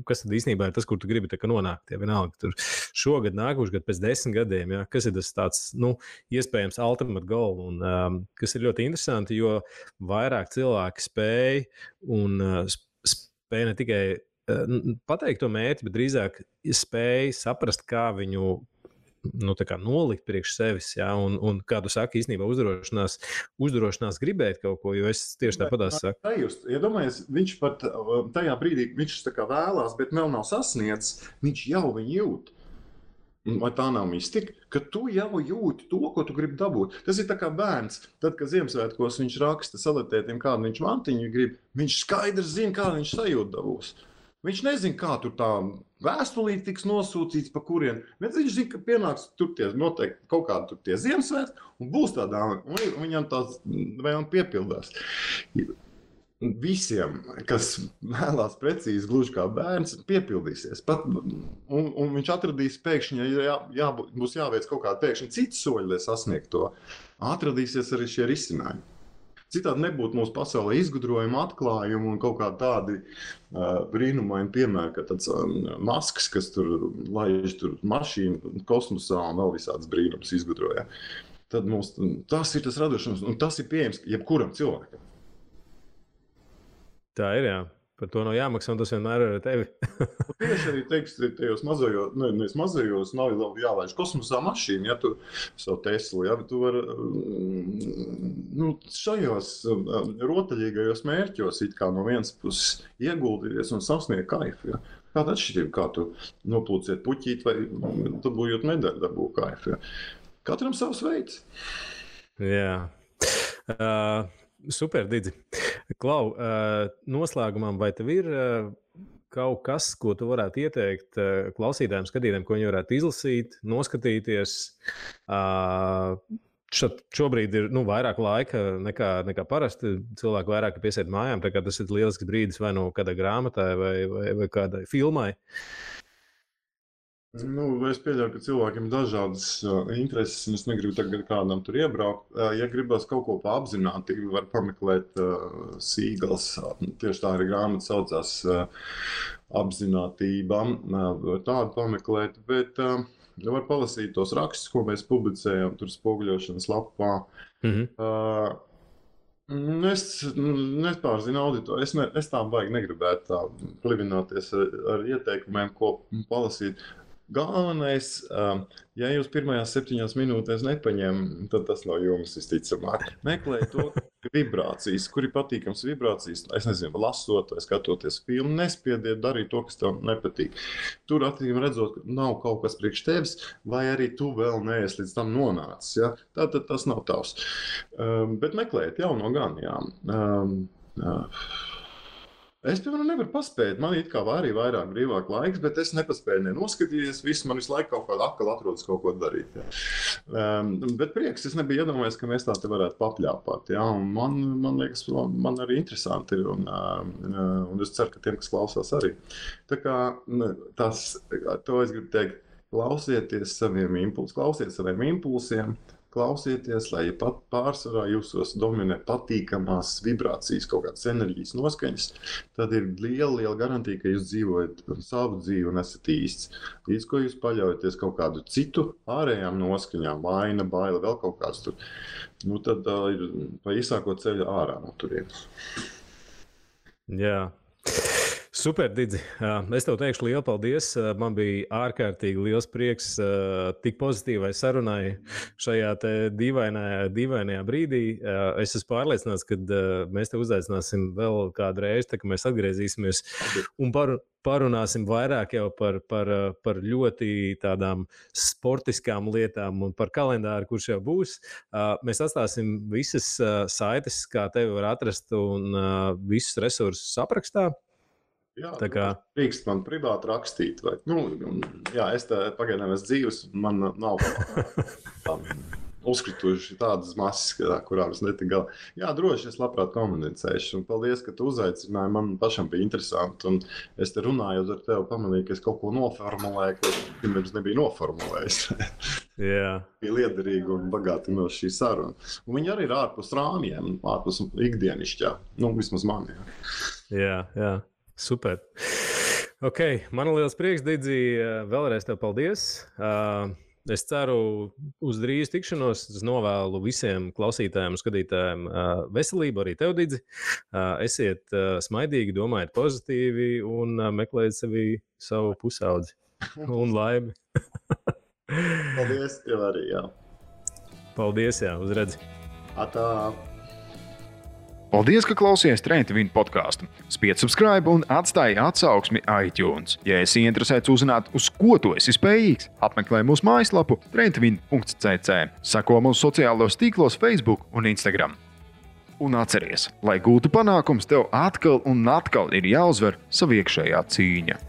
kas tad īstenībā ir tas, kur tu gribi nonākt? Ja vienalga, tur šogad, nākošais gadu, pēc 10 gadiem, ja, kas ir tas tāds, iespējams ultimate goal. Un kas ir ļoti interesanti, jo vairāk cilvēki spēj un spēj ne tikai pateikt to mērķi, bet drīzāk spēj saprast, kā viņu nolikt priekš sevis. Ja? Un kā tu saki, īstenībā uzdrošinās gribēt kaut ko, jo es tieši tāpatās saku.
Iedomājies, viņš pat tajā brīdī, viņš tā kā vēlās, bet vēl nav sasniedzis, viņš jau viņu jūt. Vai tā nav mistika, ka tu jau jūti to, ko tu gribi dabūt. Tas ir tā kā bērns. Tad, kad Ziemassvētkos viņš raksta salatētiem, kādu viņš mantiņu grib, viņš skaidrs zina, kādu viņš sajūtu dabūs. Viņš nezina, kā tur tā vēstulīte tiks nosūtīts, pa kurien. Bet viņš zina, ka pienāks tur noteikti kaut kādi tur tie Ziemassvētki un būs tādā, un viņam tās vēlme piepildās. visiem, kas vēlās precīzi, gluži kā bērns, piepildīsies. Un viņš atradīs pēkšņi, ja būs jāveic kaut kāda pēkšņi cita soļa, lai sasniegtu to, atradīsies arī šie risinājumi. Citādi nebūtu mūsu pasaulē izgudrojuma, atklājuma un kaut kādi tādi brīnumaini piemēri, kā tāds Masks, kas tur laiž mašīnu kosmosā un vēl visādas brīnumus izgudroja. Tad tas ir tas radošums, un tas ir pieejams jebkuram cilvēkam.
Tā ir, jā. Par to nav jāmaksā, un tas vienmēr ir ar tevi.
Tieši arī tajos mazajos nav jālaiž kosmosā mašīna, ja tu savu Teslu, ja tu vari šajos rotaļīgajos mērķos it kā no vienas puses ieguldīties un sasniegt kaifu. Ja. Kāda atšķirība, kā tu noplūciet puķīt vai dabūjot medaļu, dabū kaifu. Ja. Katram savs veids.
Jā. Super, Didzi. Klau, noslēgumam, vai tev ir kaut kas, ko tu varētu ieteikt klausītājiem, skatītājiem, ko viņi varētu izlasīt, noskatīties? Šobrīd ir vairāk laika nekā parasti. Cilvēki vairāk piesiet mājām, tā kā tas ir lielisks brīdis vai no kādai grāmatai vai kādai filmai.
Es pieļauju, ka cilvēkiem ir dažādas intereses, un es negribu tagad kādam tur iebraukt. Ja gribas kaut ko apzināti, var pameklēt Sīgals. Tieši tā arī grāmata saucās Apzinātība. Tādu pameklēt, bet var palasīt tos rakstus, ko mēs publicējam tur spoguļošanas lapā. Es nepārzinu auditoriju. Es tā baigi negribētu tā plivināties ar ieteikumiem, ko palasīt. Galvenais, ja jūs pirmajās 7 minūtēs nepaņem, tad tas nav jums visticamāk. Meklējiet to vibrācijas, kur ir patīkams vibrācijas. Es nezinu, lasot vai skatoties filmu, nespiediet darīt to, kas tev nepatīk. Tur attīm redzot, ka nav kaut kas priekš tevis, vai arī tu vēl neesi līdz tam nonācis. Ja? Tātad tas nav tavs. Bet meklējiet jauno gan, jā. Es, piemēram, nevaru paspēt. Man it kā arī vairāk brīvāk laiks, bet es nepaspēju noskatīties. Viss man visu laiku kaut kādā atkal atrodas kaut ko darīt. Ja. Bet prieks, es nebiju iedomājies, ka mēs tā te varētu papļāpāt. Ja. Man liekas, man arī interesanti ir. Un es ceru, ka tiem, kas klausās arī. Tā kā to es gribu teikt, klausieties saviem impulsiem. Klausieties, lai pat pārsvarā jūsos dominē patīkamās vibrācijas, kaut kādas enerģijas noskaņas, tad ir liela garantija, ka jūs dzīvojat savu dzīvi un esat īsts. Līdz ko jūs paļaujaties kaut kādu citu ārējām noskaņām, vaina, baila, vēl kaut kāds tur, tad ir pa īsāko ceļu ārā no turienes.
Jā. Super, Didzi. Es tev teikšu lielu paldies. Man bija ārkārtīgi liels prieks tik pozitīvai sarunai šajā te dīvainajā brīdī. Es esmu pārliecināts, ka mēs te uzaicināsim vēl kādu reizi, tā, ka mēs atgriezīsimies un parunāsim vairāk jau par ļoti tādām sportiskām lietām un par kalendāru, kurš jau būs. Mēs atstāsim visas saites, kā tevi var atrast un visus resursus aprakstā.
Jā, drīkst man privāti rakstīt. Vai, es pagaidām esmu dzīves, man nav uzkrituši tādas masas, kurām es netiku galā. Jā, droši, es labprāt komunicēšu. Un paldies, ka tu uzaicināji. Man pašam bija interesanti. Un es te runājot ar tevi, pamanīju, ka es kaut ko noformulēju, ko pirms nebija noformulējis.
Jā.
Bija liederīgi un bagātinoši šī saruna. Un viņi arī ir ārpus rāmjiem, ārpus ikdienišķā. Vismaz man,
Jā. Super. Ok, man ir liels prieks, Didzi. Vēlreiz tev paldies. Es ceru uz drīz tikšanos. Es novēlu visiem klausītājiem un skatītājiem veselību, arī tev, Didzi. Esiet smaidīgi, domājiet pozitīvi un meklējiet savu pusaudzi un laimi.
Paldies tev arī, jā.
Paldies, jā, uzredzi.
Atā.
Paldies, ka klausījāties Trenta Vīna podkāstu. Spied subscribe un atstāj atsauksmi iTunes. Ja esi interesēts uzzināt, uz ko tu esi spējīgs, apmeklē mūsu mājaslapu trentavina.cc. Seko mūsu sociālos tīklos Facebook un Instagram. Un atceries, lai gūtu panākums, tev atkal un atkal ir jāuzvar sava iekšējā cīņa.